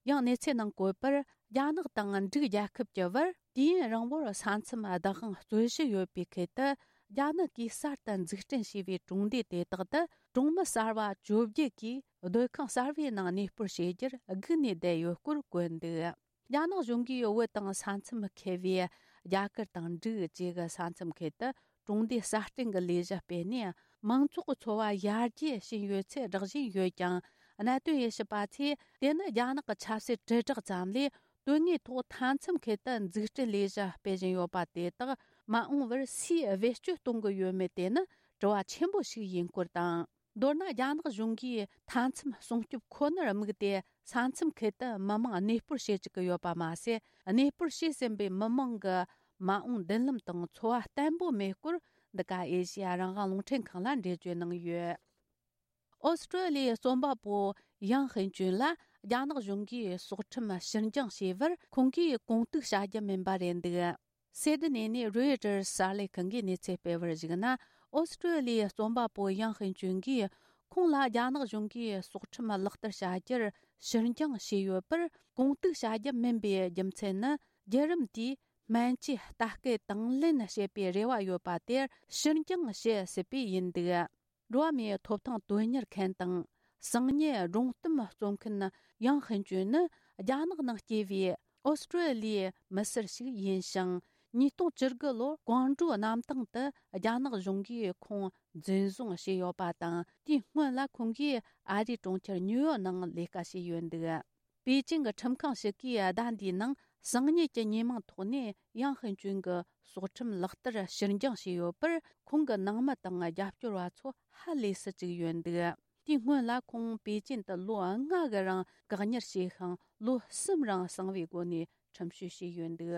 ཡང་གནས་ཚུལ་ནང་བཀོད་པར། རྒྱ་ནག་དང་འབྲུག་རྒྱལ་ཁབ་ཀྱི་བར་དུས་ཡུན་རིང་བོར་ས་མཚམས་བདག་དབང་རྩོད་གཞི་ཡོད་པའི་ཁུལ་དུ། རྒྱ་ནག་གིས་གསར་དུ་འཛུགས་སྐྲུན་བྱས་པའི་གྲོང་སྡེ་དེ་དག་ཏུ་གྲོང་མི་གསར་བ་བཅོ་བརྒྱད་ཀྱིས་སྡོད་ཁང་གསར་བའི་ནང་གནས་སྤོར་བྱེད་རྒྱུར་སྒུག་ནས་བསྡད་ཡོད་སྐོར་བཀོད་འདུག་རྒྱ་ནག་གཞུང་གིས་བོད་དང་ས་མཚམས་ཁེལ་བའི་རྒྱ་གར་དང་འབྲུག་བཅས་ཀྱི་ས་མཚམས་ཁུལ་དུ་གྲོང་སྡེ་གསར་སྐྲུན་གྱི་ལས་གཞི་སྤེལ་ནས། མང་ཚོགས་ཀྱི་འཚོ་བ་ཡར་རྒྱས་ཕྱིན་ཡོད་ཚུལ་སྒྲོག་བཞིན་ཡོད་ཀྱང་། གནད་དོན་དབྱེ་ཞིབ་པ་ཚོས་དེ་ནི་རྒྱ་ནག་གི་ཆབ་སྲིད་དྲིལ་བསྒྲགས་ཙམ་ལས། དོན་དངོས་ཐོག་མཐའ་མཚམས་ཁུལ་དུ་འཛུགས་སྐྲུན་ལས་གཞི་སྤེལ་བཞིན་ཡོད་པ་དེ་དག་མ་འོངས་པར་སུས་བེད་སྤྱོད་གཏོང་གི་ཡོད་མེད་དེ་ནི་དྲི་བ་ཆེན་པོ་ཞིག་ཡིན་སྐོར་དང་། མདོར་ན། རྒྱ་ནག་གཞུང་གིས་མཐའ་མཚམས་སྲུང་སྐྱོབ་ཁོ་ནར་དམིགས་ཏེ། ས་མཚམས་ཁུལ་དུ་མི་མང་གནས་སྤོར་བྱེད་བཅུག་གི་ཡོད་པ་མ་ཟད། གནས་སྤོར་བྱས་ཟིན་པའི་མི་མང་གི་མ་འོངས་མདུན་ལམ་དང་འཚོ་བ་བརྟན་པོ་མེད་སྐོར། འདི་ག་ཨེ་ཤེ་ཡ་རང་དབང་རླུང་འཕྲིན་ཁང་ལ་འགྲེལ་བརྗོད་གནང་ཡོད། ཨོ་སི་ཀྲོ་ལི་ཡའི་རྩོམ་པ་པོ་ཡང་ཧིན་ཅུན་ལ་རྒྱ་ནག་གཞུང་གིས་སྲོག་ཁྲིམས་ཕྱིར་འགྱངས་བྱས་པར། ཁོང་གིས་གོང་གཏུག་བྱ་རྒྱུ་མིན་པ་རེད་འདུག་སེ་ཏི་ནེ་ནས་རོའི་ཊར་གསར་ལས་ཁང་གིས་གནས་ཚུལ་སྤེལ་བར་གཞིགས་ན། ཨོ་སི་ཀྲོ་ལི་ཡའི་རྩོམ་པ་པོ་ཡང་ཧིན་ཅུན་གྱིས། ཁོང་ལ་རྒྱ་ནག་གཞུང་གིས་སྲོག་ཁྲིམས་ལག་བསྟར་བྱ་རྒྱུར་ཕྱིར་འགྱངས་བྱས་ཡོད་པར། གོང་གཏུག་བྱ་རྒྱུ་མིན་པའི་རྒྱུ་མཚན་ནི། བརྒྱུད་རིམ་དེས་སྨན་བཅོས་ལྟ་སྐུལ་དང་ལེན་བྱེད་པའི་རེ་བ་ཡོད་པ་དེར་ཕྱིར་འགྱངས་བྱེད་སྲིད་པས་ཡིན་འདུག་འགྲོ་བ་མིའི་ཐོབ་ཐང་དོན་གཉེར་མཁན་དང་། གསང་ཉུལ་སྒྲུང་གཏམ་རྩོམ་མཁན་ཡང་ཧིན་ཅུན་ནི། རྒྱ་ནག་ནང་སྐྱེས་པའི་ཨོ་སི་ཀྲོ་ལི་ཡའི་མི་སེར་ཞིག་ཡིན་ཞིང་། ཉིས་སྟོང་བཅུ་དགུ་ལོར་ཀོང་ཀྲོའུ་གནམ་ཐང་དུ་རྒྱ་ནག་གཞུང་གིས་ཁོང་འཛིན་བཟུང་བྱས་ཡོད་པ་དང་། དེའི་སྔོན་ལ་ཁོང་གིས་ཨ་རིའི་གྲོང་ཁྱེར་ཉིའུ་ཡོག་ནང་ལས་ཀ་བྱས་ཡོད་འདུག་པེ་ཅིང་གི་ཁྲིམས་ཁང་ཞིག་གིས་ཟླ་འདིའི་ནང་གསང་ཉུལ་གྱི་ཉེས་མིང་ཐོག་ནས་ཡང་ཧིན་ཅུན་གྱི་སྲོག་ཁྲིམས་ལག་བསྟར་ཕྱིར་འགྱངས་བྱས་ཡོད་པར། ཁོང་གི་ནང་མི་དང་རྒྱབ་སྐྱོར་བ་ཚོ་ཧ་ལས་སུ་བཅུག་ཡོད་འདུག་དེའི་སྔོན་ལ་ཁོང་པེ་ཅིན་དུ་ལོ་ལྔ་གི་རིང་བཀག་ཉར་བྱས་ཤིང་། ལོ་གསུམ་རིང་གསང་བའི་སྒོ་ནས་ཁྲིམས་གཅོད་བྱས་ཡོད་འདུག་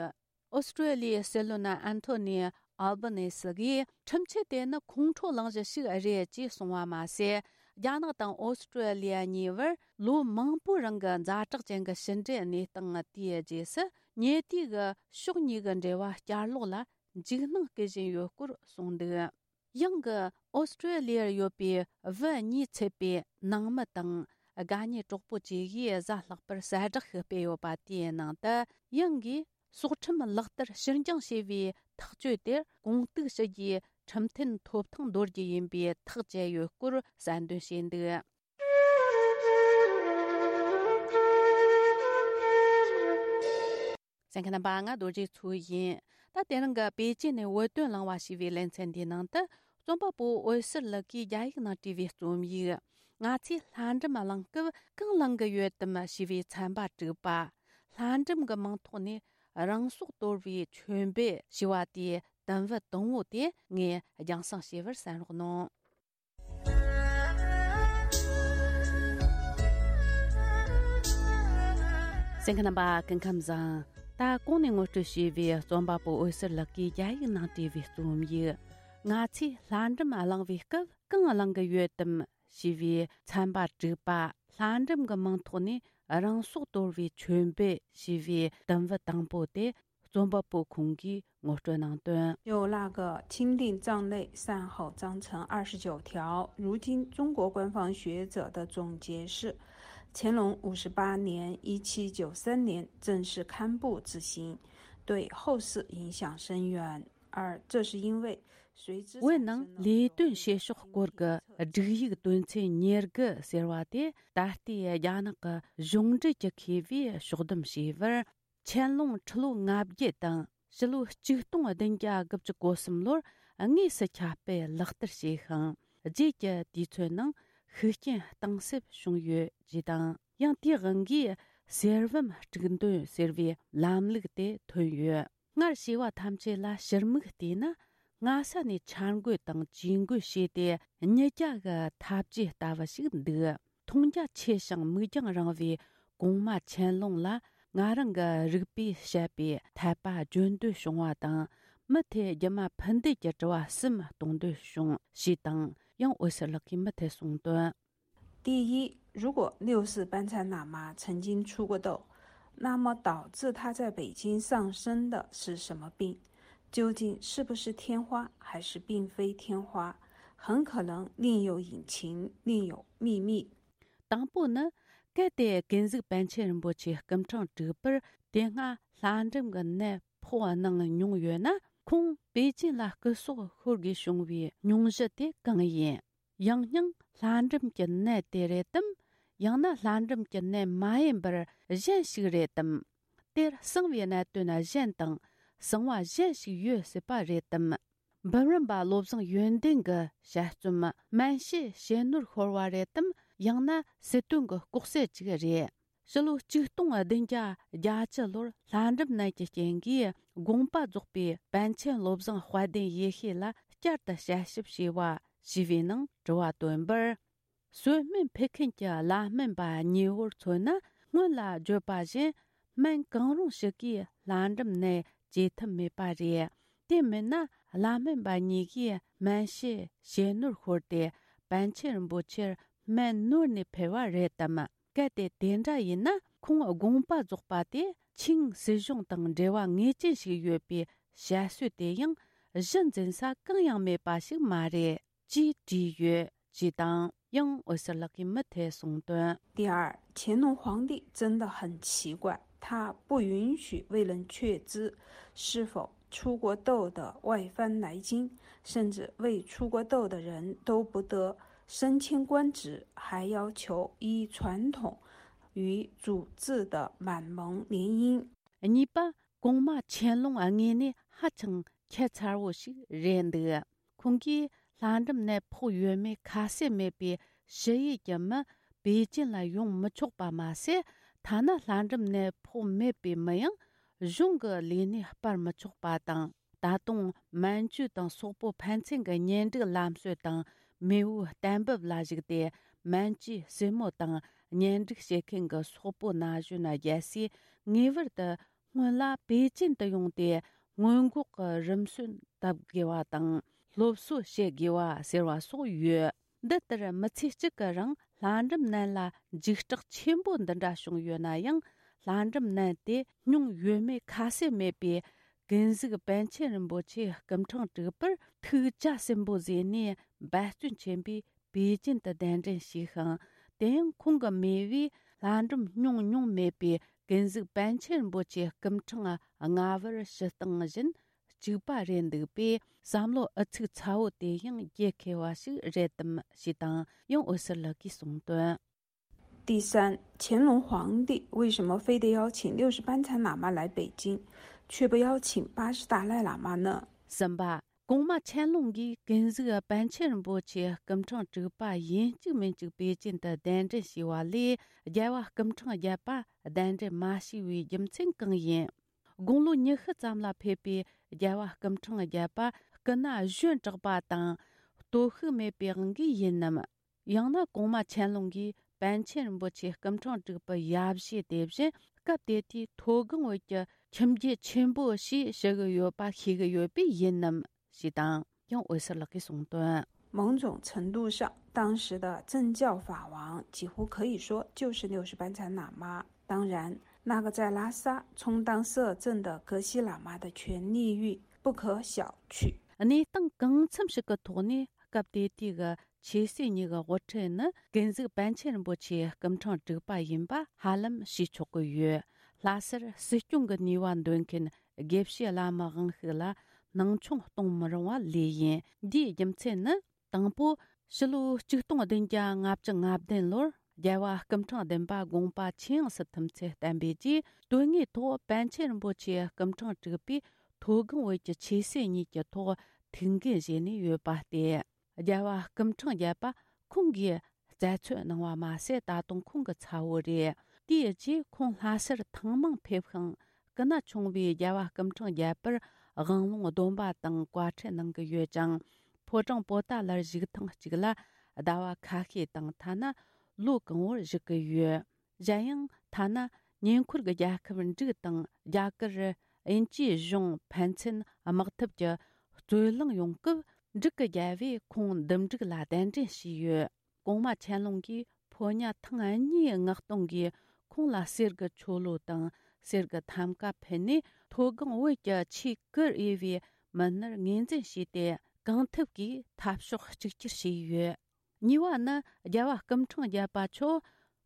ཨོ་སི་ཀྲོ་ལི་ཡའི་སྲིད་བློན་ཨན་ཐོ་ནི་ཨལ་བ་ནེ་སི་གིས། ཁྲིམས་ཆད་དེ་ནི་ཁོང་ཁྲོ་གླེང་གཞི་ཞིག་རེད་ཅེས་གསུངས་པ་མ་ཟད། རྒྱ་ནག་དང་ཨོ་སི་ཀྲོ་ལི་ཡ་གཉིས་བར་ལོ་མང་པོའི་རིང་གི་ཛ་དྲག་ཅན་གྱི་ཕྱི་འབྲེལ་གནས་སྟངས་དེའི་རྗེས་སུ། ཉེ་དུས་ཀྱི་ཕྱོགས་གཉིས་ཀྱི་འབྲེལ་བ་བསྐྱར་ལོག་ལ་འཇིགས་སྣང་སྐུལ་བཞིན་ཡོད་སྐོར་གསུངས་འདུག་ཡང་གི་ཨོ་སི་ཀྲོ་ལི་ཡར་ཡོད་པའི་བུ་གཉིས་ཚུད་པའི་ནང་མི་དང་། དགའ་ཉེ་གྲོགས་པོ་བཅས་ཀྱིས་གཟའ་ལྷག་པར་གསལ་བསྒྲགས་ཤིག་སྤེལ་ཡོད་པ་དེའི་ནང་དུ། ཡང་གིས་སྲོག་ཁྲིམས་ལག་བསྟར་ཕྱིར་འགྱངས་བྱས་པའི་ཐག་གཅོད་དེར་གོང་གཏུག་ཞུ་རྒྱུའི་ཁྲིམས་མཐུན་ཐོབ་ཐང་འདོར་རྒྱུ་ཡིན་པའི་ཐག་བཅད་ཡོད་སྐོར་གསལ་འདོན་བྱས་འདུག་གསན་མཁན་རྣམ་པ། ང་རྡོ་རྗེ་མཚོ་ཡིན། ད་དེ་རིང་གི་པེ་ཅིན་ནས་བོད་དོན་གླེང་བ་ཞེས་པའི་ལེ་ཚན་འདིའི་ནང་དུ། རྩོམ་པ་པོ་འོད་ཟེར་ལགས་ཀྱིས་རྒྱ་ཡིག་ནང་བྲིས་པའི་རྩོམ་ཡིག་ང་ཚོས་ལྷ་འབྲུམ་བླང་སྐབས་གང་བླང་གི་ཡོད་དམ་ཞེས་པའི་ཚན་པ་དྲུག་པ། ལྷ་འབྲུམ་གྱི་མིང་ཐོག་ནས་རང་སྲོག་དོར་བའི་མཆོད་འབུལ་ཞེས་པ་དེའི་དུམ་བུ་དང་པོ་དེ་ངས་རྒྱང་སྲིང་ཞུ་བར་གསན་རོགས་གནང་། གསན་མཁན་རྣམ་པ། སྐུ་ཁམས་བཟང་། ད་གོང་ནས་ངོ་སྤྲོད་བྱས་པའི་རྩོམ་པ་པོ་འོད་ཟེར་ལགས་ཀྱིས་རྒྱ་ཡིག་ནང་བྲིས་པའི་རྩོམ་ཡིག་ང་ཚོས་ལྷ་འབྲུམ་བླང་བའི་སྐབས་གང་བླང་གི་ཡོད་དམ་ཞེས་པའི་ཚན་པ་དྲུག་པ། ལྷ་འབྲུམ་གྱི་མིང་ཐོག་ནས་རང་སྲོག་དོར་བའི་མཆོད་འབུལ་ཞེས་པའི་དུམ་བུ་དང་པོ་དེ། རྩོམ་པ་པོ་ཁོང་གིས་ངོ་སྤྲོད་གནང་དོན། 就那个钦定葬类善后章程二十九条，如今中国官方学者的总结是：乾隆五十八年，一七九三年正式刊布执行。对后世影响深远。二，这是因为随之 བོད་ནང་ལས་དོན་བྱེད་ཕྱོགས་སྐོར་གྱི་སྒྲིག་ཡིག་དོན་ཚན་ཉེར་དགུ་ཟེར་བ་དེ་ད་ལྟའི་རྒྱ་ནག་གི་གཞུང་འབྲེལ་གྱི་མཁས་པས་ཕྱོགས་བསྡོམས་བྱས་པར། ཆན་ལུང་ཁྲི་ལོ་ལྔ་བརྒྱད་དང་ཕྱི་ལོ་ཆིག་སྟོང་བདུན་བརྒྱ་དགུ་བཅུ་གོ་གསུམ་ལོར་དངོས་སུ་ཁྱབ་སྤེལ་ལག་བསྟར་བྱས་ཤིང་། རྗེས་ཀྱི་དུས་ཚོད་ནང་ཤུགས་རྐྱེན་གཏིང་ཟབ་བྱུང་ཡོད་ཅེས་དང་། ཡང་དེའི་དབང་གིས་གསེར་བུམ་དཀྲུག་འདོན་ཟེར་བའི་ལམ་ལུགས་དེ་ཐོན་ཡོད། སྔར་བྱས་པ་ཐམས་ཅད་ལ་ཕྱིར་མིག་བལྟས་ན། སྔ་ས་ནས་འཆར་འགོད་དང་ཇུས་འགོད་བྱས་ཏེ་ཉིད་རྒྱ་གི་ཐབས་ཇུས་ལྟ་བུ་ཞིག་འདུག་མཐོང་རྒྱ་ཆེ་ཞིང་མིག་རྒྱང་རིང་བའི་གོང་མ་ཆན་ལུང་ལ་ང་རང་གི་རིག་པས་དཔྱད་པའི་འཐད་པ་བརྗོད་འདོད་བྱུང་བ་དང་། མི་དེ་རྒྱུ་མ་ཕུ་འདེད་ཀྱི་དྲི་བ་གསུམ་གཏོང་འདོད་བྱུང་ཞེས་དང་། ཡང་འོད་ཟེར་ལགས་ཀྱིས་མུ་མཐུད་གསུངས་དོན། 第一，如果六世班禅喇嘛曾经出过斗，那么导致他在北京上身的是什么病？究竟是不是天花，还是并非天花？很可能另有隐情，另有秘密。 དང་པོ་ནི། གལ་ཏེ་ཀུན་གཟིགས་པཎ་ཆེན་རིན་པོ་ཆེ་སྐུ་འཕྲེང་དྲུག་པར་དེ་སྔ་ལྷ་འབྲུམ་གྱི་ནད་ཕོག་གནང་མྱོང་ཡོད་ན། ཁོང་པེ་ཅིན་ལ་སྐུ་སྲོག་ཤོར་དགོས་བྱུང་བའི་སྙུང་གཞི་དེ་གང་ཡིན། ཡང་སྙིང་ལྷ་འབྲུམ་གྱི་ནད་དེ་རེད་དམ། ཡང་ན་ལྷ་འབྲུམ་གྱི་ནད་མ་ཡིན་པར་གཞན་ཞིག་རེད་དམ། དེར་གསང་བའི་གནད་དོན་གཞན་དང་གསང་བ་གཞན་ཞིག་ཡོད་སྲིད་པ་རེད་དམ། འབུམ་རམས་པ་བློ་བཟང་ཡོན་ཏན་གྱི་དཔྱད་རྩོམ་སྨན་དཔྱད་བྱེད་ནོར་ཤོར་བ་རེད་དམ། ཡང་ན་སྲིད་དོན་གྱི་ལྐོག་གསོད་ཅིག་རེད། ཕྱི་ལོ་ཆིག་སྟོང་བདུན་བརྒྱ་བརྒྱད་ཅུ་ལོར་ལྷ་འབྲུམ་ནད་ཀྱི་རྐྱེན་གྱིས་དགོངས་པ་རྫོགས་པའི་པཎ་ཆེན་བློ་བཟང་དཔལ་ལྡན་ཡེ་ཤེས་ལ་བསྐྱར་དུ་དཔྱད་ཞིབ་བྱས་པ་ཞེས་པའི་ནང་དྲི་བ་བཏོན་པར། གསོལ་སྨན་ཕུལ་མཁན་གྱི་བླ་སྨན་པ་གཉིས་པོར་མཚོན་ན། སྔོན་ལ་བརྗོད་པ་བཞིན་སྨན་གང་རུང་ཞིག་གིས་ལྷ་འབྲུམ་ནད་བཅོས་ཐུབ་མེད་པ་རེད། དེ་མིན་ན་བླ་སྨན་པ་གཉིས་ཀྱིས་སྨན་དཔྱད་བྱེད་ནོར་ཤོར་ཏེ་པཎ་ཆེན་རིན་པོ་ཆེར་སྨན་ནོར་ནས་འཕེལ་བ་རེད་དམ། གལ་ཏེ་དེ་འདྲ་ཡིན་ན། ཁོང་དགོངས་པ་རྫོགས་པ་དེ་ཆིང་སྲིད་གཞུང་དང་འབྲེལ་བ་ངེས་ཅན་ཞིག་ཡོད་པའི་དཔྱད་བཟོད་དེ་ཡང་གཞི་འཛིན་ས་གང་ཡང་མེད་པ་ཞིག་མ་རེད། 记者约 记档。 ཡང་འོད་ཟེར་ལགས་ཀྱིས་མུ་མཐུད་གསུངས་དོན། 第二，乾隆皇帝真的很奇怪，他不允许未能确知是否出过斗的外藩来京，甚至未出过斗的人都不得升迁官职，还要求依传统与祖制的满蒙联姻。 གཉིས་པ། གོང་མ་ཆན་ལུང་དངོས་གནས་ཧ་ཅང་ཁྱད་མཚར་བོ་ཞིག་རེད་འདུག་ཁོང་གིས་ལྷ་འབྲུམ་ནད་ཕོག་ཡོད་མེད་ཁ་གསལ་མེད་པའི་ཞི་ཡུལ་གྱི་མི་པེ་ཅིན་ལ་ཡོང་མི་ཆོག་པ་མ་ཟད། ཐ་ན་ལྷ་འབྲུམ་ནད་ཕོག་མེད་པའི་མི་ཡང་གཞུང་གི་ལས་གནས་སྤར་མི་ཆོག་པ་དང་། ད་དུང་མན་ཇུ་དང་སོག་པོ་ཕན་ཚུན་གྱི་གཉེན་སྒྲིག་ལམ་སྲོལ་དང་མེས་པོའི་གཏན་འབེབས་ལ་གཞིགས་ཏེ། མན་ཇུའི་སྲས་མོ་དང་གཉེན་སྒྲིག་བྱེད་མཁན་གྱི་སོག་པོ་ན་གཞོན་རྒྱལ་སྲས་ངེས་པར་དུ་སྔོན་ལ་པེ་ཅིན་དུ་ཡོང་སྟེ་སྔོན་འགོག་གི་རིམ་སྲོལ་བཏབ་དགོས་པ་དང་སློབ་གསོ་བྱེད་དགོས་པ་ཟེར་བ་སོགས་ཡོད། འདི་ལྟར་མི་ཚེ་གཅིག་གི་རིང་ལྷ་འབྲུམ་ནད་ལ་འཇིགས་སྐྲག་ཆེན་པོ་འདི་འདྲ་བྱུང་ཡོད་ན་ཡང་། ལྷ་འབྲུམ་ནད་དེ་མྱོང་ཡོད་མེད་ཁ་གསལ་མེད་པའི་ཀུན་གཟིགས་པཎ་ཆེན་རིན་པོ་ཆེ་སྐུ་འཕྲེང་དྲུག་པར་ཐུགས་རྒྱ་ཆེན་པོ་བཟུང་ནས་འབད་བརྩོན་ཆེན་པོས་པེ་ཅིན་དུ་གདན་འདྲེན་ཞུས་ཤིང་། དེ་ཡང་ཁོང་གི་མེས་པོས་ལྷ་འབྲུམ་མྱོང་མྱོང་མེད་པའི་ཀུན་གཟིགས་པཎ་ཆེན་རིན་པོ་ཆེ་སྐུ་འཕྲེང་ལྔ་པར་ཞུ་སྟངས་བཞིན་གཅིག་པ་རེད་འདུག་པས། བསམ་བློ་ཨུ་ཚུགས་ཚ་བོ་དེ་ཡང་རྒྱལ་མཁས་པ་ཞིག་རེད་དམ་ཞེས་དང་ཡང་འོད་ཟེར་ལགས་ཀྱིས་གསུངས་དོན། 第三，乾隆皇帝为什么非得邀请六世班禅喇嘛来北京，却不邀请八世达赖喇嘛呢？ གསུམ་པ། གོང་མ་ཆན་ལུང་གིས་ཀུན་གཟིགས་པཎ་ཆེན་རིན་པོ་ཆེ་སྐུ་འཕྲེང་དྲུག་པ་ཡིན་གཅིག་མིན་གཅིག་པེ་ཅིན་དུ་གདན་འདྲེན་ཞུས་པ་ལས། རྒྱལ་བ་སྐུ་འཕྲེང་བརྒྱད་པ་གདན་འདྲེན་མ་ཞུས་པའི་རྒྱུ་མཚན་གང་ཡིན། དགུང་ལོ་ཉི་ཤུ་ཙམ་ལ་ཕེབས་པའི་རྒྱལ་བ་སྐུ་འཕྲེང་བརྒྱད་པ་སྐུ་ན་གཞོན་དྲགས་པ་དང་སྟོབས་ཤུགས་མེད་པའི་དབང་གིས་ཡིན་ནམ། ཡང་ན་གོང་མ་ཆན་ལུང་གིས་པཎ་ཆེན་རིན་པོ་ཆེ་སྐུ་འཕྲེང་དྲུག་པའི་ཡབ་གཞིས་དེ་བཞིན་སྐབས་དེ་དུས་མཐོ་སྒང་བོད་ཀྱི་ཁྱིམ་རྒྱུད་ཆེན་པོ་ཞེས་ཞུ་གི་ཡོད་པ་ཤེས་ཀྱི་ཡོད་པས་ཡིན་ནམ་ཞེས་དང་ཡང་འོད་ཟེར་ལགས་ཀྱིས་གསུངས་དོན། 某种程度上，当时的政教法王几乎可以说就是六世班禅喇嘛。当然，那个在拉萨充当摄政的格西喇嘛的权力欲不可小觑。 གནས་སྟངས་གང་འཚམ་ཞིག་གི་ཐོག་ནས་སྐབས་དེ་དུས་ཀྱི་ཆོས་སྲིད་གཉིས་ཀྱི་དབུ་ཁྲིད་ནི་ཀུན་གཟིགས་པཎ་ཆེན་རིན་པོ་ཆེ་སྐུ་འཕྲེང་དྲུག་པ་ཡིན་པ་ཧ་ལམ་ཤེས་ཆོག་གི་ཡོད། ལྷ་སར་སྲིད་སྐྱོང་གི་ནུས་པ་འདོན་མཁན་ དགེ་བཤེས་བླ་མའི་དབང་ཤུགས་ལ་སྣང་ཆུང་གཏོང་མི་རུང་བ་ལོས་ཡིན། འདིའི་རྒྱུ་མཚན་ནི། དང་པོ། ཕྱི་ལོ་ཆིག་སྟོང་བདུན་བརྒྱ་ལྔ་བཅུ་ང་བདུན་ལོར་རྒྱལ་བ་སྐུ་ཕྲེང་བདུན་པ་དགོངས་པ་ཆེས་ཡངས་སུ་ཐིམ་ཚུལ་བསྟན་པའི་རྗེས། དོན་དངོས་ཐོག་པཎ་ཆེན་རིན་པོ་ཆེ་སྐུ་ཕྲེང་དྲུག་པས་མཐོ་སྒང་བོད་ཀྱི་ཆོས་སྲིད་གཉིས་ཀྱི་ཐོག་ཐུགས་འགན་བཞེས་ནས་ཡོད་པ་སྟེ། རྒྱལ་བ་སྐུ་ཕྲེང་བརྒྱད་པ་ཁོང་གིས་རྩད་གཅོད་གནང་བ་མ་ཟད། ད་དུང་ཁོང་གི་ཚ་བོ་རེད། དེའི་རྗེས་ཁོང་ལྷ་སར་ཐེངས་མང་ཕེབས་ཤིང་། སྐུ་ན་ཆུང་བའི་རྒྱལ་བ་སྐུ་ཕྲེང་བརྒྱད་པར་དབང་ལུང་སྡོམ་པ་དང་བཀའ་ཁྲིད་གནང་གི་ཡོད་ཅིང་། ཕོ་བྲང་པོ་ཏཱ་ལར་བཞུགས་ཐེངས་གཅིག་ལ་ཟླ་བ་ཁ་ཤས་དང་། ཐ་ན་ལོ་གང་བོར་བཞུགས་ཀྱི་ཡོད། གཞན་ཡང་། ཐ་ན་ཉེ་འཁོར་གྱི་རྒྱལ་ཁབ་འབྲུག་དང་རྒྱ་གར་དབྱིན་ཇིའི་གཞུང་ཕན་ཚུན་དམག་འཐབ་ཀྱི་རྩོད་གླེང་ཡོང་སྐབས། འབྲུག་གི་རྒྱལ་བོས་ཁོང་འདུམ་འགྲིག་ལ་གདན་འདྲེན་བྱས་ཡོད། གོང་མ་ཆན་ལུང་གིས་ཕོ་ཉ་ཐེངས་གཉིས་མངགས་གཏོང་གིས་ཁོང་ལ་གསེར་གྱི་ཆོ་ལོ་དང་གསེར་གྱི་ཐམ་ཀ་ཕུལ་ནས། མཐོ་སྒང་བོད་ཀྱི་ཆེས་གུ་རུ་འོས་པའི་མི་སྣར་ངོས་འཛིན་བྱས་ཏེ། གང་ཐུབ་ཀྱིས་འཐབ་ཕྱོགས་གཅིག་གྱུར་བྱས་ཡོད། གཉིས་པ་ནི། རྒྱལ་བ་སྐུ་ཕྲེང་བརྒྱད་པ་མཆོག་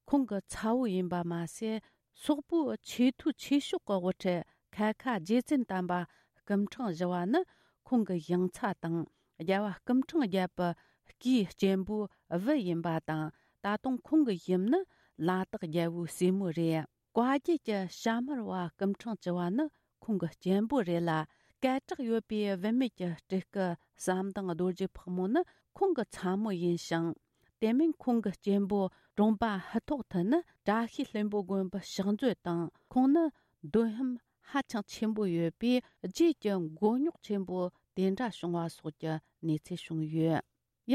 ཁོང་གི་ཚ་བོ་ཡིན་པ་མ་ཟད། སོག་པོའི་ཆེས་མཐོའི་ཆོས་ཕྱོགས་ཀྱི་དབུ་ཁྲིད་ཁལ་ཁ་རྗེ་བཙུན་དམ་པ་སྐུ་ཕྲེང་བཞི་བ་ནི་ཁོང་གི་ཡང་ཚ་དང་། རྒྱལ་བ་སྐུ་ཕྲེང་བརྒྱད་པའི་སྐུའི་གཅེན་པོའི་བུ་ཡིན་པ་དང་། ད་དུང་ཁོང་གི་ཡུམ་ནི་ལ་དྭགས་རྒྱལ་པོའི་སྲས་མོ་རེད། བཀའ་བརྒྱུད་ཀྱི་ཞྭ་དམར་བ་སྐུ་ཕྲེང་བཅུ་བ་ནི་ཁོང་གི་གཅེན་པོ་རེད་ལ། སྐད་གྲགས་ཡོད་པའི་བུད་མེད་ཀྱི་སྤྲུལ་སྐུ་ཟམ་གདོང་རྡོ་རྗེ་ཕག་མོ་ནི་ཁོང་གི་ཚ་མོ་ཡིན་ཞིང་། དེ་མིན་ཁོང་གི་གཅེན་པོ་གྲོང་པ་ཧི་ཐོག་ཐུ་ནི་བཀྲ་ཤིས་ལྷུན་པོ་དགོན་པའི་ཕྱག་མཛོད་དང་། ཁོང་ནི་འདོན་ཧམ་ཧ་ཅང་ཆེན་པོ་ཡོད་པས། རྗེས་ཀྱི་མགོ་རྙོག་ཆེན་པོ་དེ་འདྲ་བྱུང་བ་སོགས་ཀྱི་གནས་ཚུལ་བྱུང་ཡོད།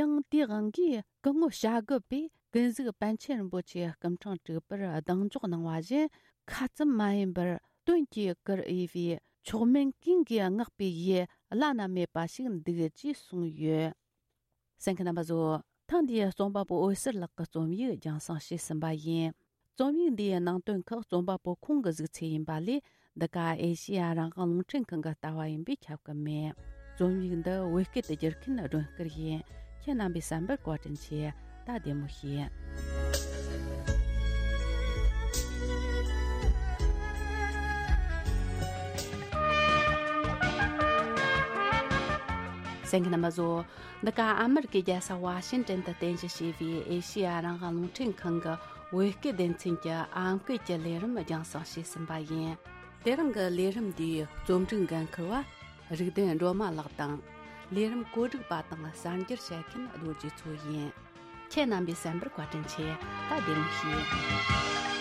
ཡང་དེའི་དབང་གིས་སྐུ་ངོ་བྱ་རྒོད་པས་ཀུན་གཟིགས་པཎ་ཆེན་རིན་པོ་ཆེ་སྐུ་ཕྲེང་དྲུག་པར་གདེང་འཇོག་གནང་བ་བཞིན། ཁ་ཙམ་མ་ཡིན་པར་དོན་གྱི་གུ་རུ་འོས་པའི་མཆོག་དམན་ཀུན་གྱིས་བསྔགས་པའི་ཡུལ་བླ་ན་མེད་པ་ཞིག་འདུག་ཅེས་གསུངས་ཡོད། གསན་མཁན་རྣམ་པ་ཚོ། ཐེངས་འདིའི་རྩོམ་པ་པོ་འོད་ཟེར་ལགས་ཀྱི་རྩོམ་ཡིག་རྒྱང་སྲིང་བྱས་ཟིན་པ་ཡིན། རྩོམ་ཡིག་འདིའི་ནང་དོན་ཁག་རྩོམ་པ་པོ་ཁོང་གི་གཟིགས་ཚུལ་ཡིན་པ་ལས། འདི་ག་ཨེ་ཤེ་ཡ་རང་དབང་རླུང་འཕྲིན་ཁང་གི་ལྟ་བ་ཡིན་པས་ཁྱབ་ཀྱི་མེད། རྩོམ་ཡིག་འདི་བོད་སྐད་དུ་བསྒྱུར་མཁན་སྒྲོན་སྐུར་ཡིན། ཁྱེད་རྣམ་པའི་བསམ་པར་བཀའ་དྲིན་ཆེ། ད་བདེ་མོ་བྱོས། གསན་མཁན་རྣམ་པ་ཚོ། འདི་ག་ཨ་མེ་རི་ཀའི་རྒྱལ་ས་ཝ་ཤིང་ཏན་དུ་རྟེན་གཞི་བྱས་པའི་ཨེ་ཤེ་ཡ་རང་དབང་རླུང་འཕྲིན་ཁང་གི་བོད་སྐད་སྡེ་ཚན་གྱི་ཨམ་སྐད་ཀྱི་ལས་རིམ་རྒྱང་སྲིང་བྱས་ཟིན་པ་ཡིན། དེ་རིང་གི་ལས་རིམ་འདིའི་རྩོམ་སྒྲིག་འགན་འཁུར་བ་རིག་ལྡན་སྒྲོལ་མ་ལགས་དང་། ལས་རིམ་བཀོད་སྒྲིག་པ་དང་གསར་འགྱུར་བཤད་མཁན་རྡོ་རྗེ་མཚོ་ཡིན། ཁྱེད་རྣམ་པའི་གསན་པར་བཀའ་དྲིན་ཆེ། ད་བདེ་མོ་བྱོས།